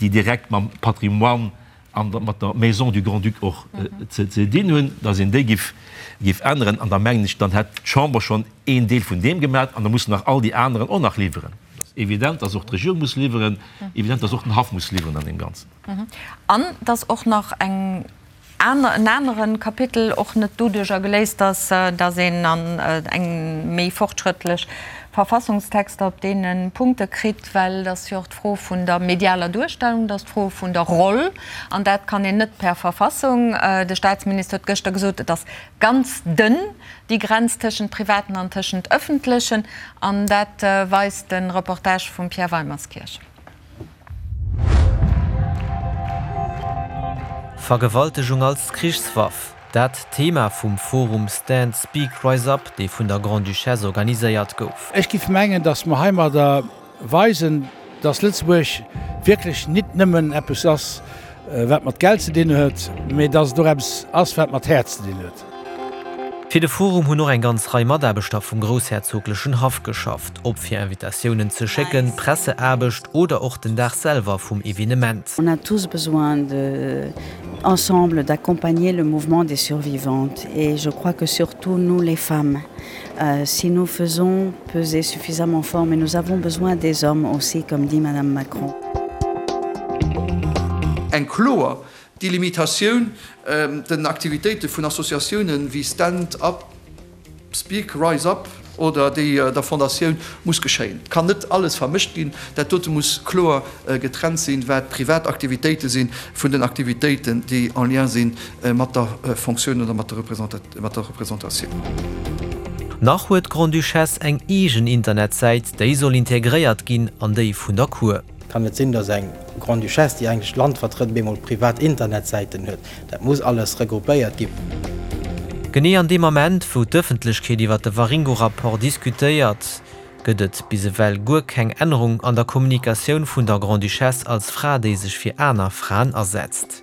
déi direkt mam Patrimoine an mat der Maison du Grand-Duc och ze dinn hunn, datt een déi giff giff änneren. An da mengen ech, dann hätt d'Chamber schonn een Deel vun deem gemaach an da mussen nach all déi aneren och nach liwweren. Et ass evident, datt och d'Regierung muss liwweren, evident, datt och den Haff muss liwweren an deem Ganzen. An dass och nach eng aner, en anere Kapitel och net doduerjer geléist ass, dass een an eng méi fortschrëttlech Verfassungstexter op deene Punkte kritt, well et ass jo och d'Fro vun der medialer Duerstellung, et ass d'Fro vun der Roll, an dat kann een net per Verfassung. De Statsminister huet gëschter gesot, et ass ganz dënn, déi Grenz tëschent Privaten an tëschent Ëffentlechen, an dat weist de Reportage vum Pierre Weimerskirch. Vergewaltegung als Krichswaff, dat d'Thema vum Forum Stand Speak Rise Up, dee vun der Grande-Duchesse organiséiert gouf. Ech giff mengen, datt mer heimadder weisen, datt Lëtzebuerg wierklech nit nëmmen eppes ass, wat mat Geld ze dinn huet, mee datt et och eppes ass, wat mat Häerz ze dinn huet. Fir de Forum hunn och eng ganz Rei Mataarbechter vum groussherzoglechen Haff geschafft, ob fir Invitatiounen ze schécken, Presseaarbecht oder och den Dag selwer vum Evenement. On a tous besoin de, ensemble, d'accompagner le mouvement des survivantes et je crois que surtout nous les femmes, si nous faisons peser suffisamment fort, mais nous avons besoin des hommes aussi, comme dit Madame Macron. Eng kloer Delimitatioun den Aktivitéite vun Associatiounen wéi Stand Up, Speak, Rise Up oder déi der Fondatioun muss geschéien. Et kann net alles vermëscht ginn. Dat dote muss kloer getrennt sinn, wat privat Aktivitéite sinn vun den Aktivitéiten, déi en lien si mat der Fonctioun oder mat der Représentatioun. Nach huet d'Grande-Duchesse eng eegen Internetsäit, déi soll integréiert ginn an déi vun der Cour. Kann net sinn, dass eng Grande-Duchesse, déi eigentlech d'Land vertrëtt, op eemol privat Internetsäiten huet. Dat muss alles regroupéiert ginn. Genee an deem Ament, wou d'Ëffentlechkeet iwwer de Waringo-Rapport diskutéiert, gëtt et bis ewell guer keng Ännerung an der Kommunikatioun vun der Grande-Duchesse als Fra, déi sech fir aner Fraen asetzt.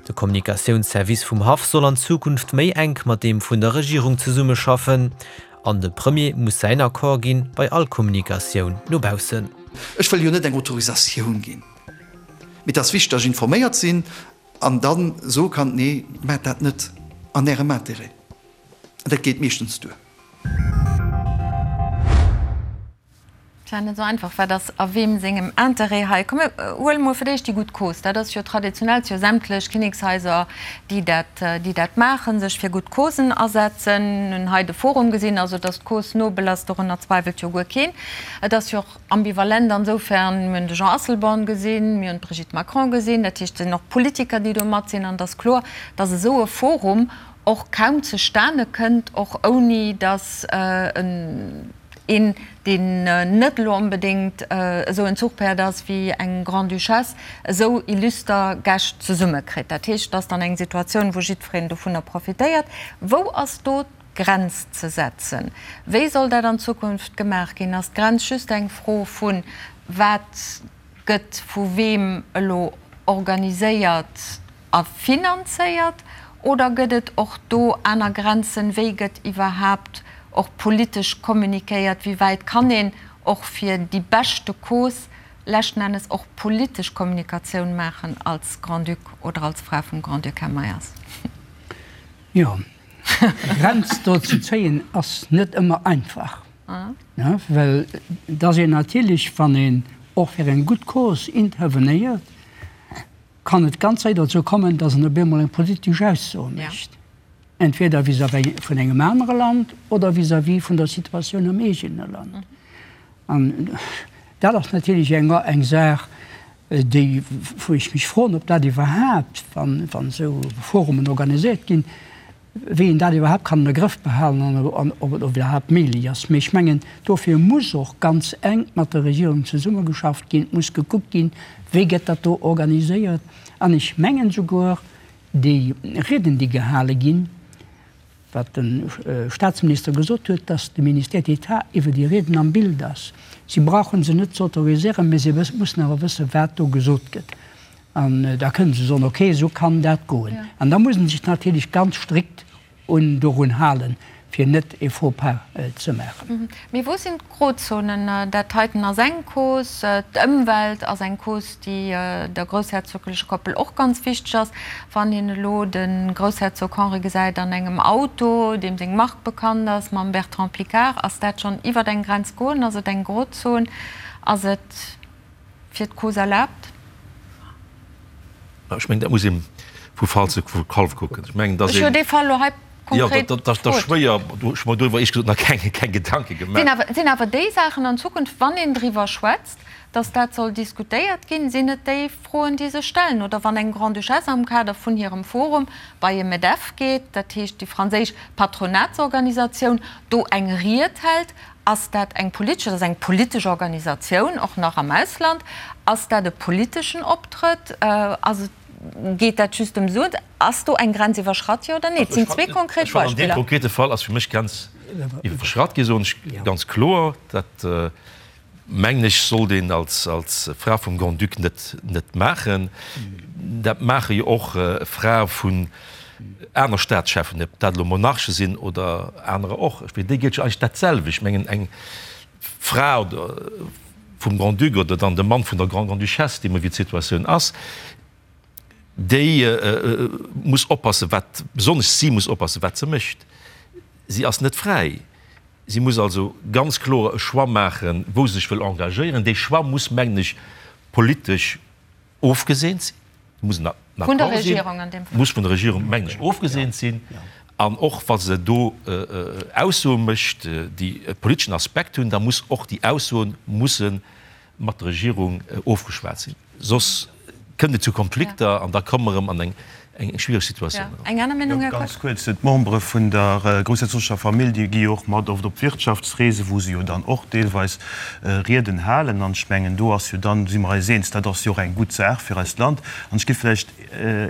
De Kommunikatiounsservice vum Haff soll an Zukunft méi enk mat deem vun der Regierung zesummeschaffen an de Premier muss säin Accord ginn bei all Kommunikatioun no baussen. Ech wëll jo net eng Autorisatioun ginn, mee et ass wichteg, datt ech informéiert sinn an da soe kann, Nee, maacht dat net an Ärem Intérêt. An dat geet meeschtens duer. Tja, net esou einfach. Wat ass a weem sengem Interêt hei? Komm mir huele mol fir d'éischt déi gutt Cause. Dat ass jo traditionell, si jo sämtlech Kinnekshaiser, déi dat, déi dat maachen, sech fir gutt Causen asetzen. Mir hunn hei de Forum gesinn. Also, datt d'Cause nobel ass, dorunner zweiwelt jo guer keen. Et ass jo och ambivalent ansoufern, mir hunn de Jean Asselborn gesinn, mir hunn d'Brigitte Macron gesinn, dat heescht, et sinn och Politiker, déi do mat sinn. An et ass kloer, datt esou e Forum och kaum zustane kënnt, och ouni datt en, Een, deen net elo onbedéngt esou en Zuchpäerd ass wéi eng Grande-Duchesse, esou illuster Gäscht zesummekritt. Dat heescht, et ass dann eng Situatioun, wou jiddwereen dovunner profitéiert. Wou ass do d'Grenz ze setzen? Wéi soll dat an Zukunft gemaach ginn? Ass d'Grenz just eng Fro vu wat gëtt vu weem elo organiséiert a finanzéiert oder gëtt et och do aner Grenzen? Wéi gëtt iwwerhaapt och politesch kommunikéiert? Wéi wäit kann een och fir déi beschte Cause leschten Ennes och politesch Kommunikatioun maachen als Grand-Duc oder als Fra vum Grand-Duc, Här Meyers? Jo, eng Grenz do ze zéien ass net ëmmer einfach, well et ass een natierlech, wann een och fir eng gutt Cause intervenéiert, kann et ganz séier dozou kommen, datt en op eemol eng politesch Ausso mécht, entweder vis-à-vis vun engem anere Land oder vis-à-vis vun der Situatioun am eegene Land. An dat ass natierlech eng eng Saach, déi, wou ech mech froen, ob dat iwwerhaapt, wann esou Forumen organiséiert ginn, wéi een dat iwwerhaapt kann an de Grëff behalen an ob et iwwerhaapt méiglech ass. Mee ech mengen, dofir muss och ganz enk mat der Regierung zesummegeschafft ginn. Et muss gekuckt ginn, wéi gëtt dat do organiséiert. An ech mengen souguer, déi Rieden, déi gehale ginn, wat de Statsminister gesot huet, dass de Ministère d'État iwwer déi Rieden am Bild ass. Si brauche se net ze autoriséieren, mee se mussen awer wëssen, wat do gesot gëtt. An da kënnen se soen, okay, esou kann dat goen. An da muss ee sech natierlech ganz strikt un dorun halen, fir net e Faux-pas ze maachen. Mee wou sinn d'Grozonen? Dat heiten ass eng Cause, d'Ëmwelt ass eng Cause, déi der groussherzoglecher Koppel och ganz wichteg ass. Wann een elo de Groussherzog Henri gesäit an engem Auto, deem seng Mark bekannt ass, mam Bertrand Piccard, ass dat schonn iwwer eng Grenz goen? Ass et eng Grozon? Ass et. Fir d'Cause erlaabt? Ech mengen, dat muss ee vu Fall zu Fall kucken. Ech mengen, dass Ech hu dee Fall elo hei konkret gefrot. Jo, dat ass schwéier. Do hu ech mer doriwwer éierlech gesot nach keng Gedanke gemaach. Sinn awer déi Saachen an Zukunft, wann een driwwer schwätzt, dass dat soll diskutéiert ginn, sinn et déi Froen, déi sech stellen? Oder wann eng Grande-Duchesse am Kader vun hirem Forum bei e Medef geet, dat heescht déi franséisch Patronatsorganisatioun, do eng Ried hält, Ass dat eng politesch, dat ass eng politesch Organisatioun, och nach am Ausland, ass dat e politeschen Optrëtt? Ass et, geet dat just ëm Suen? Ass do eng Grenz iwwerschratt, jo oder nee? Et sinn zwee konkret Ech fannen, an deem Beispiller. konkrete Fall ass fir mech d'Grenz iwwerschratt ginn, soen ech ganz kloer. Dat, mengen ech, sollt een als Fra vum Grand-Duc net net maachen. Dat maache jo och Frae vun aner Staatscheffen, ob dat elo Monarche sinn oder anerer och. Fir déi gëllt jo eigentlech dat selwecht. Ech mengen, eng Fra oder vum Grand-Duc oder dann de Mann vun der Grande-Grande-Duchesse, deemno wéi d'Situatioun ass, déi muss oppassen, wat, besonnesch si muss oppassen, wat se mécht. Si ass net fräi. Si muss also ganz kloer e Choix maachen, wou se sech wëll engagéieren. Dee Choix muss, mengen ech, politesch ofgeseent sinn, muss en Accord sinn, muss vun der Regierung, mengen ech, ofgeseent sinn. An och wa se do Aussoe mécht, déi e politeschen Aspekt hunn, da muss och déi Aussoe musse mat der Regierung ofgeschwat sinn. Soss kënnt et zu Konflikter an da komme mer erëm an eng. Eng schwiereg Situatioun eran. Eng aner Meenung, Här Kox? Ganz kuerz, D'Membere vun der groussherzoglecher Famill, déi gi jo och mat oft op Wirtschaftsreesen, wou se jo dann och deelweis Rieden halen. An ech mengen, do ass jo dann, do si mer eis eens, dat ass jo och eng gutt Saach fir eist Land. An ech géif vläicht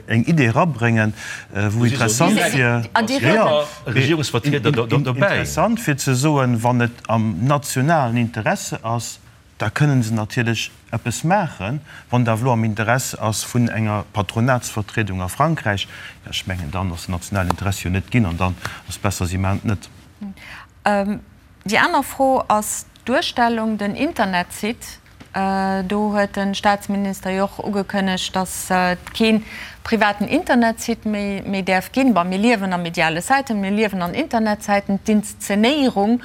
eng Idee erabréngen, wou interessant wier, interessant fir ze soen, wann et am nationalen Interesse ass, da kënnen se natierlech eppes maachen. Wann et awer elo am Interesse ass vun enger Patronatsvertriedung a Frankräich, jo, ech mengen, dann ass den nationalen Interesse jo net ginn an dann ass et besser, si maachen et net. Déi aner Fro ass d'Duerstellung, den Internetsite. Do huet de Staatsminister jo och ugekënnegt, datt et kee privaten Internetsite méi däerf ginn. Bon, mir liewen a mediale Zäiten, mir liewen an Internetzäiten. D'Inszenéierung,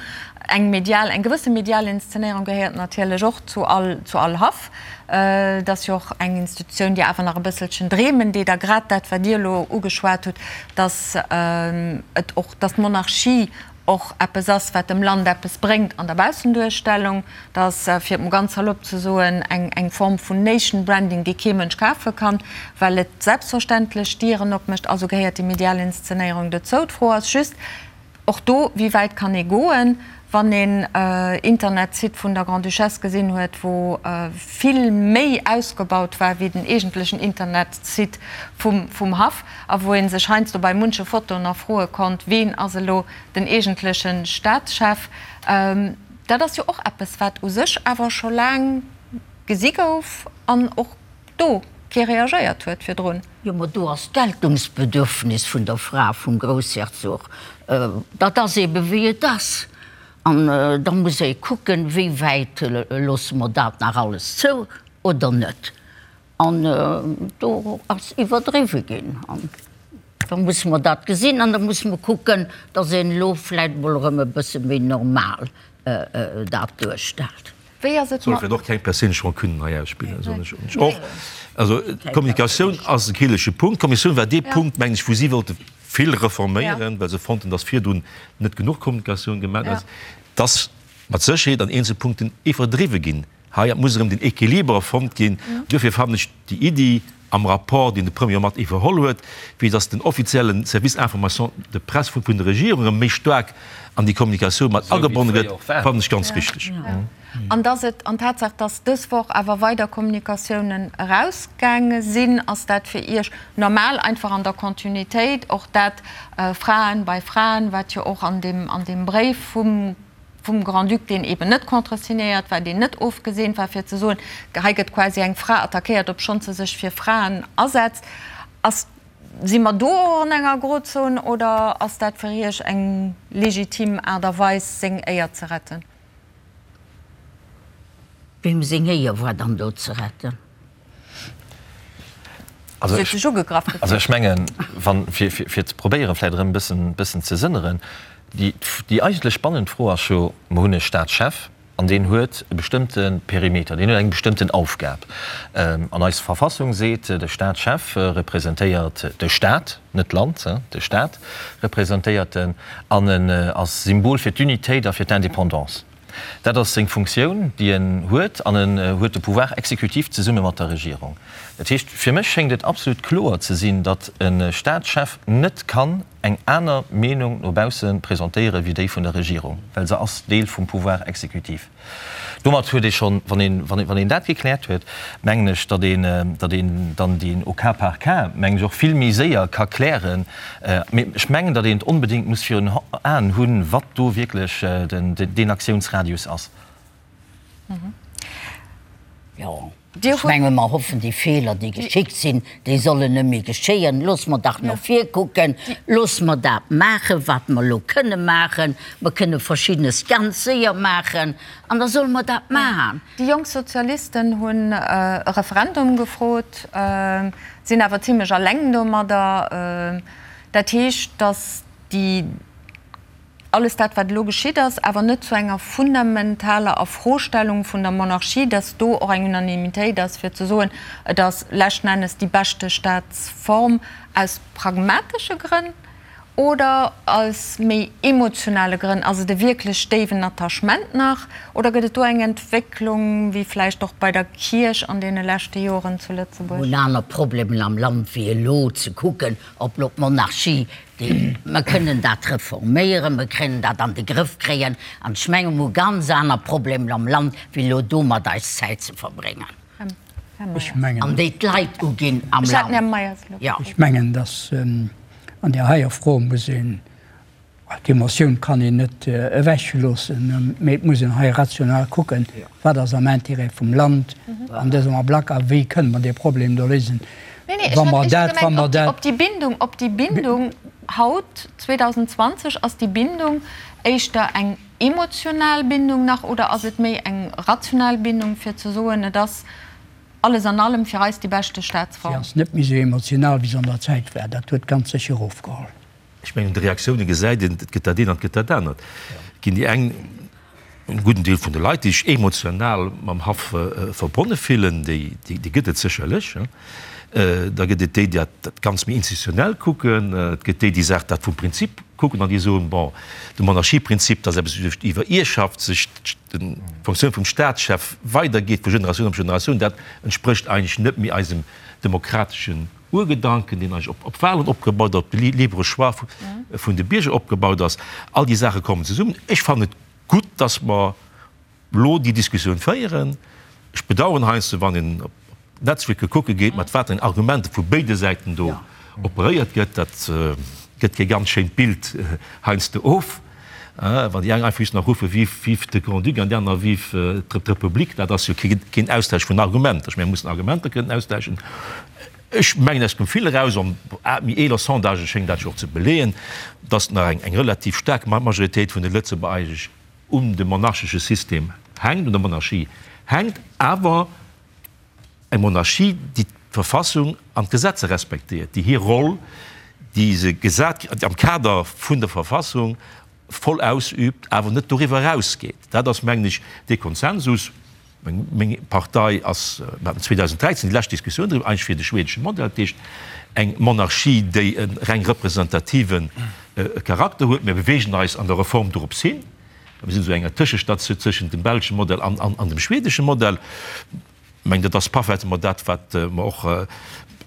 eng medial, eng gewësse medial Inszenéierung gehéiert natierlech och zu all, zu all Haff. Et ass jo och eng Institutioun, déi awer nach e bësselchen dreemen deet. A grad dat, wat Dir elo ugeschwat hutt, datt et och, datt d'Monarchie och eppes ass, wat dem Land eppes bréngt an der Baussenduerstellung, dass, fir et mol ganz salopp ze soen, eng eng Form vun Nation Branding, déi kee Mënsch kafe kann, well et selbstverständlech Dieren opmécht. Also gehéiert déi medial Inszenéierung dozou. D'Fro ass just och do, Wéi wäit kann ee goen, wann een Internetsite vun der Grande-Duchesse gesinn huet, wou vill méi ausgebaut war wéi den eegentlechen Internetsite vum vum Haff? A wou ee sech heiansdo bei munche Fotoen nach froe konnt, Ween ass elo den eegentleche Staatschef? Dat ass jo och eppes, wat u sech awer scho laang gesi gouf an och do kee reagéiert huet virdrun. Jo, ma do ass d'Geltungsbedürfnis vun der Fra vum Groussherzog, dat ass eebe wéi et ass. An da muss ee kucken, wéi wäit loosse mer dat nach alles zou oder net. An do ass iwwerdriwwe ginn. An da musse mer dat gesinn an da musse mer kucken, datt een elo vläicht emol erëm e bësse méi normal dat duerstellt. Wéi ass et Soll mat. Och keng perséinlech Rancunen hei ausspillen, soen ech och. Also d'Kommunikatioun ass e kriddelege Punkt. D'Kommissioun war dee Punkt, mengen ech, wou si wollte vill reforméieren, well se fonnten, datt virdrun net genuch Kommunikatioun gemaach ass. Dass mat Sécherheet an eenzele Punkten iwwerdriwwe ginn. Hei muss erëm den Equiliber fonnt ginn. Duerfir fannen ech déi Iddi am Rapport, deen de Premier mat iwwerholl huet, wéi datt den offizielle Service Information de presse vun der Regierung erëm méi staark an déi Kommunikatioun mat agebonne gëtt, fannen ech ganz richteg. An datt et, an d'Tatsaach, datt dës Woch awer weider Kommunikatiounen erausgaange sinn, ass dat fir Iech normal, einfach an der Continuitéit, och dat Fraen bei Fraen, wat jo och an deem, an deem Bréif vum vum Grand-Duc, deen eben net contresignéiert war, deen net ofgeseent war, fir ze soen, hei gëtt quasi eng Fra attackéiert, obschonns se sech fir Fraen asetzt. Ass, si mer do och an enger Grozon oder ass dat fir Iech eng legitim Aart a Weis, seng Éier ze retten? Weem seng Éier war dann do ze retten? Also ech mengen, wann, fir, fir ze probéieren, vläicht erëm e bëssen, bëssen ze sënneren, déi, déi eigentlech spannend Fro ass jo, Mer hunn e Staatschef an deen huet e bestëmmte Perimeter, deen huet eng bestëmmten Aufgab. An eis Verfassung seet, de Staatschef representéiert de Staat, net d'Land, de Staat representéiert en an en ass Symbol fir d'Unitéit a fir d'Indépendance. Dat ass seng Funktioun, déi en huet, an en huet de Pouvoir exécutif zesumme mat der Regierung. Dat heescht, fir mech schéngt et absolut kloer ze sinn, datt e Staatschef net kann eng aner Meenung no bausse presentéiere wéi déi vun der Regierung, well se ass Deel vum Pouvoir exécutif. Domat huet ee schonn, wann een, wann een dat gekläert huet, mengen ech, datt een, datt een dann deen au cas par cas, mengen ech, och vill méi séier ka klären. Mee ech mengen, datt een et onbedéngt muss virun Aen hunn, wat do wierklech deen Aktiounsradius ass. Jo, ech menge mer hoffen, déi Feeler, déi geschickt sinn, déi sollen net méi geschéien. Loosse mer dach no vir kucken, loosse mer dat maachen, wat mer elo kënne maachen. Mer kënne Verschiddenes ganz séier maachen an da solle mer dat maachen. Déi jonk Sozialisten hunn e Referendum gefrot, sinn awer zimlech alleng domadder. Dat heescht, datt déi, alles dat wat elo geschitt ass, awer net zu enger fundamentaler Afrostellung vun der Monarchie, datt do och eng Unanimitéit ass fir ze soen, et ass leschten Ennes déi beschte Staatsform aus pragmatesche Grënn. Oder aus méi emotionale Grënn? Ass et e wierklech déiwen Attachement nach? Oder gëtt et do eng Entwécklung, wéi vläicht och bei der Kierch an deene leschte Joren zu Lëtzebuerg? Mir hunn aner Problemen am Land wéi elo ze kucken, ob lo d'Monarchie, déi, mer kënnen dat reforméieren, mer kënnen dat an de Grëff kréien. An ech menge mer hu ganz aner Problemen am Land wéi elo domat eis Zäit ze verbréngen. An déi d'Leit uginn am Land. Ech mengen, datt an där heier Fro muss een, d'Emotioun kann een net ewechloossen, mee et muss een hei rational kucken, wat ass am Intérêt vum Land an dësem Ablack a wéi kënne mer dee Problem do léisen. Nee, nee, ech hat éischter gemengt, op déi Bindung, op déi Bindung haut, 2020, ass déi Bindung éischter eng emotional Bindung nach oder ass et méi eng rational Bindung, fir ze soen, et ass alles an allem fir eis déi beschte Staatsform? Si ass net méi esou emotional, wéi se an der Zäit war. Dat huet ganz sécher ofgeholl. Ech mengen, un de Reaktioune gesäit een, et gëtt dat eent an et gëtt dat anert. Et ginn déi eng, en gudden Deel vun de Leit, déi sech emotional mam Haff verbonne fillen, déi gëtt et sécherlech. Da gëtt et déi, déi dat Ganzt méi institutionell kucken. Et gëtt déi, déi Saach dat vum Prinzip kucken an déi soen, bon, de Monarchieprinzip, dat ass eppes, wou duerch d'Iwwerierrschaft sech d'Fonctioun vum Staatschef weidergeet vu Generatioun op Generatioun, dat entsprécht eigentlech net méi eisem demokrateschen Urgedanken, deen eigentlech op Wahlen opgebaut ass, op de libre Choix vun de Bierger opgebaut ass. All déi Saache kommen zesummen. Ech fannen et gutt, dass mer elo déi Diskussioun féieren. Ech bedauern heiansdo, wann een op d'Netzwierker kucke geet, mat wat eng Argumenter vu béide Säiten do operéiert gëtt. Dat gëtt kee ganz schéint Bild heiansdo of, wann déi eng einfach just nach ruffe Vive, vive de Grand-Duc an déi aner Vive d'Republik. Dat ass jo keen Austausch vun Argumenter. Ech mengen, mir mussen Argumenter kënnen austauschen. Ech mengen, aus dem Vill eraus, an méi eeler Sondagë schéngen dat jo och ze beleeën, datt nach eng relativ staark Majoritéit vun de Lëtzebuerger eigentlech un dem monarchesche System hänkt, un der Monarchie hänkt, awer eng Monarchie, déi d'Verfassung an d'Gesetzer respektéiert, déi hir Roll, déi se gesat kritt am Kader vun der Verfassung, voll ausübt, awer net doriwwer erausgeet. Dat ass, mengen ech, dee Konsensus. Meng Partei ass, mir haten 2013 déi lescht Diskussioun driwwer, eigentlech fir de schwedesche Modell, dat heescht eng Monarchie, déi e reng representative Charakter huet. Mir beweegen eis an der Reform dorops hin. Mir sinn esou enger Tëschestatioun tëschent dem belsche Modell an dem schwedesche Modell. Ech mengen, dat ass parfaitement dat, wat mer och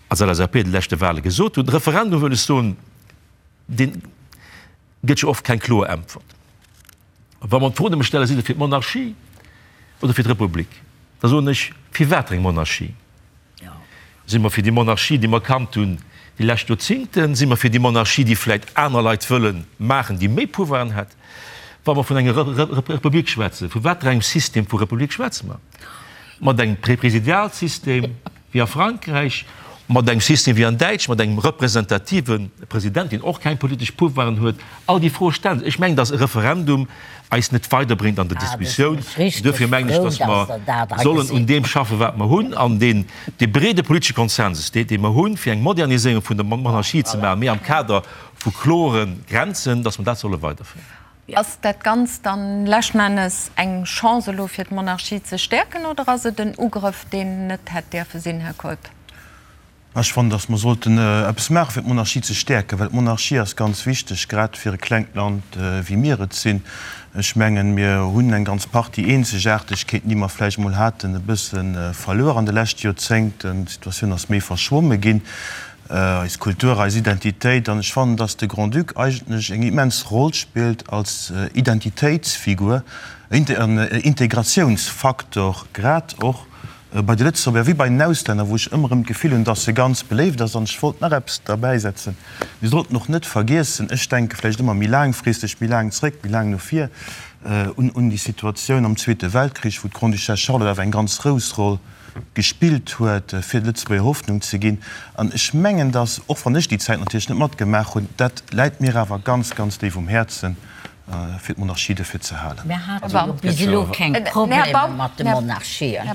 als LSAP de leschte Wahle gesot hunn. De Referendum, wëll ech soen, dee gëtt jo oft keng kloer Äntwert. Wa mer d'Fro nëmme stellen, Sidd Der fir d'Monarchie oder fir d'Republik? da soen ech, Fir wat eng Monarchie? Si mer fir déi Monarchie, déi mer kannt hunn déi lescht Joerzingten? Si mer fir déi Monarchie, déi vläicht aner Leit wëlle maachen, déi méi Pouvoiren hätt? Wa mer vun enger Republik schwätzen, vu wat fir engem System vu Republik schwätze mer? Mat engem Präsidialsystem? Wéi a Frankräich, mat engem System wéi an Däitsch, mat engem representative President, deen och keng politesch Pouvoiren huet. All déi Froe stellen sech. Ech mengen, datt e Referendum eis net weiderbréngt an der Diskussioun. Duerfir mengen ech, datt mer sollen un deem schaffen, wat mer hunn, an deen, dee breede politesche Konsensus, dee mer hunn, fir eng Moderniséierung vun der Monarchie ze maachen, mee am Kader vu klore Grenzen, datt mer dat solle weiderféieren. Ass dat Ganzt dann leschten Ennes eng Chance elo fir d'Monarchie ze stäerken oder ass et en Ugrëff deen net hätt däerfe sinn, Här Keup? Ech fannen, datt mer sollten eppes maache fir d'Monarchie ze stäerken, well d'Monarchie ass ganz wichteg, grad fir e klengt Land wéi mir et sinn. Ech mengen, mir hunn eng ganz Partie Eenzegaartegkeeten, déi mer vläicht emol haten, e bësse verluer an de leschte Joerzéngten. D'Situatioun ass méi verschwomme ginn. eis Kultur, eis Identitéit. An ech fannen, dass de Grand-Duc eigentlech eng immens Roll spillt als Identitéitsfigur, en Integratiounsfaktor, grad och bei de Lëtzebuerger wéi bei den Auslänner, wou ech ëmmer erëm d'Gefill hunn, dass e ganz beléift ass. An ech wollt nach eppes derbäisetzen, Mir sollten och net vergiessen, ech denke vläicht ëmmer méi laangfristeg, méi laang zréck, méi laang no vir, un déi Situatioun am Zweete Weltkrich, wou d'Grande-Duchesse Charlotte awer eng ganz grouss Roll gespillt huet, fir de Lëtzebuerger Hoffnung ze ginn. An ech mengen, dass, och wann ech déi Zäit natierlech net matgemaach hunn, dat läit mir awer ganz, ganz déif um Häerzen, fir d'Monarchie dofir ze halen. Mir hate jo bis elo keng Problemer mat de Monarchien.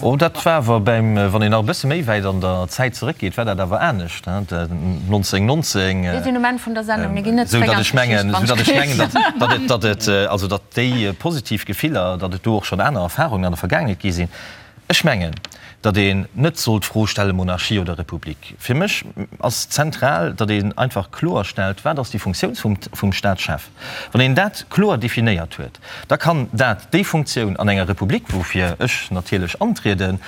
Oh, dat war awer beim, wann een nach e bësse méi wäit an der Zäit zeréckgeet, war dat awer anescht, 1919. Mir sinn um Enn vun der Sendung, mir ginn net zeréck an d'Geschicht, wann ech mengen, datt et, datt et, also datt déi positiv Gefiller, datt et do och schonn aner Erfahrungen an der Vergaangenheet gi sinn. Ech mengen, datt een net soll d'Fro stelle Monarchie oder Republik. Fir mech ass zentral, datt een einfach kloer stellt, wat ass déi Funktioun vum Staatschef. Wann een dat kloer definéiert huet, da kann dat déi Funktioun an enger Republik, woufir ech natierlech antrieden,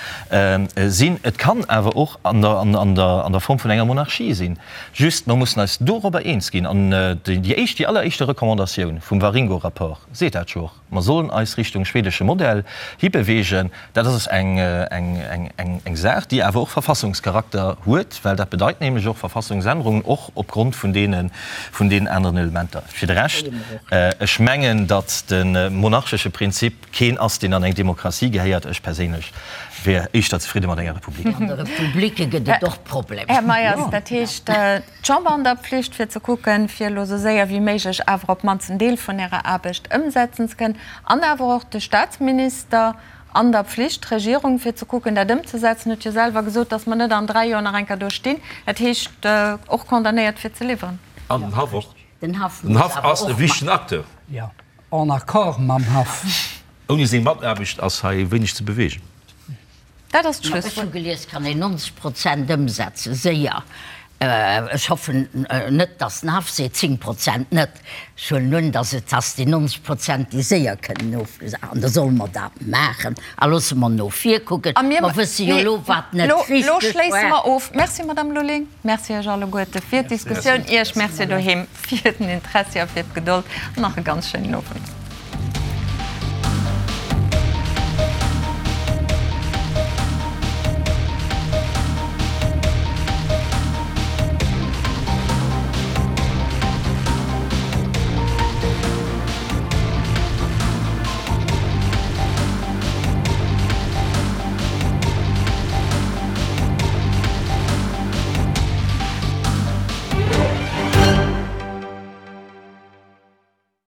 sinn. Et kann awer och an der Form vun enger Monarchie sinn. Just, mer mussen eis dorobber eens ginn. An déi éischt, déi alleréischte Recommandatioun vum Waringo-Rapport seet dat jo och. Mer sollen eis Richtung schwedesche Modell hibeweegen. Dat ass eng Saach, déi awer och Verfassungscharakter huet, well dat bedeit nämlech och Verfassungsännerungen, och opgrond vun deenen aneren Elementer. Fir de Rescht, ech mengen, datt de monarchesche Prinzip keen ass, deen an eng Demokratie gehéiert. Ech perséinlech wier éischter zefridde mat enger Republik. An de Republike gëtt et och Problemer. Här Meyers, dat heescht, D'Chamber an der Pflicht fir ze kucken, fir elo esou séier wéi méiglech awer op d'mannst en Deel vun ärer Aarbecht ëmsetzen ze kënnen, an awer och de Statsminister an der Pflicht, d'Regierung, fir ze kucken, dat ëmzesetzen, huet jo selwer gesot, dass mer net an dräi Joer nach eng Kéier do stinn. Dat heescht, och condamnéiert fir ze liwweren. An den Haff och. Den Haff Den Haff ass e wichtegen Acteur. Jo, en accord mam Haff. Ouni seng Mataarbecht ass hei wéineg ze bewegen. Dat ass d'Schlusswuert. Ech hu gelies, kann een 90 Prozent ëmsetzen, séier. Ech hoffen net, datt den Haff seet 10 Prozent net. Ech huelen un, datt et ass déi 90 Prozent, déi séier kënnen ofgesat. An da solle mer dat maachen a loosse mer no vir kucken. Mer wësse jo elo, wat net richteg war. Elo schléisse mer of. Merci, Madame Lulling. Merci Iech alleguerte fir d'Diskussioun. Iech Merci doheem fir den Interessi a fir d'Gedold. An nach e ganz schéinen Owend.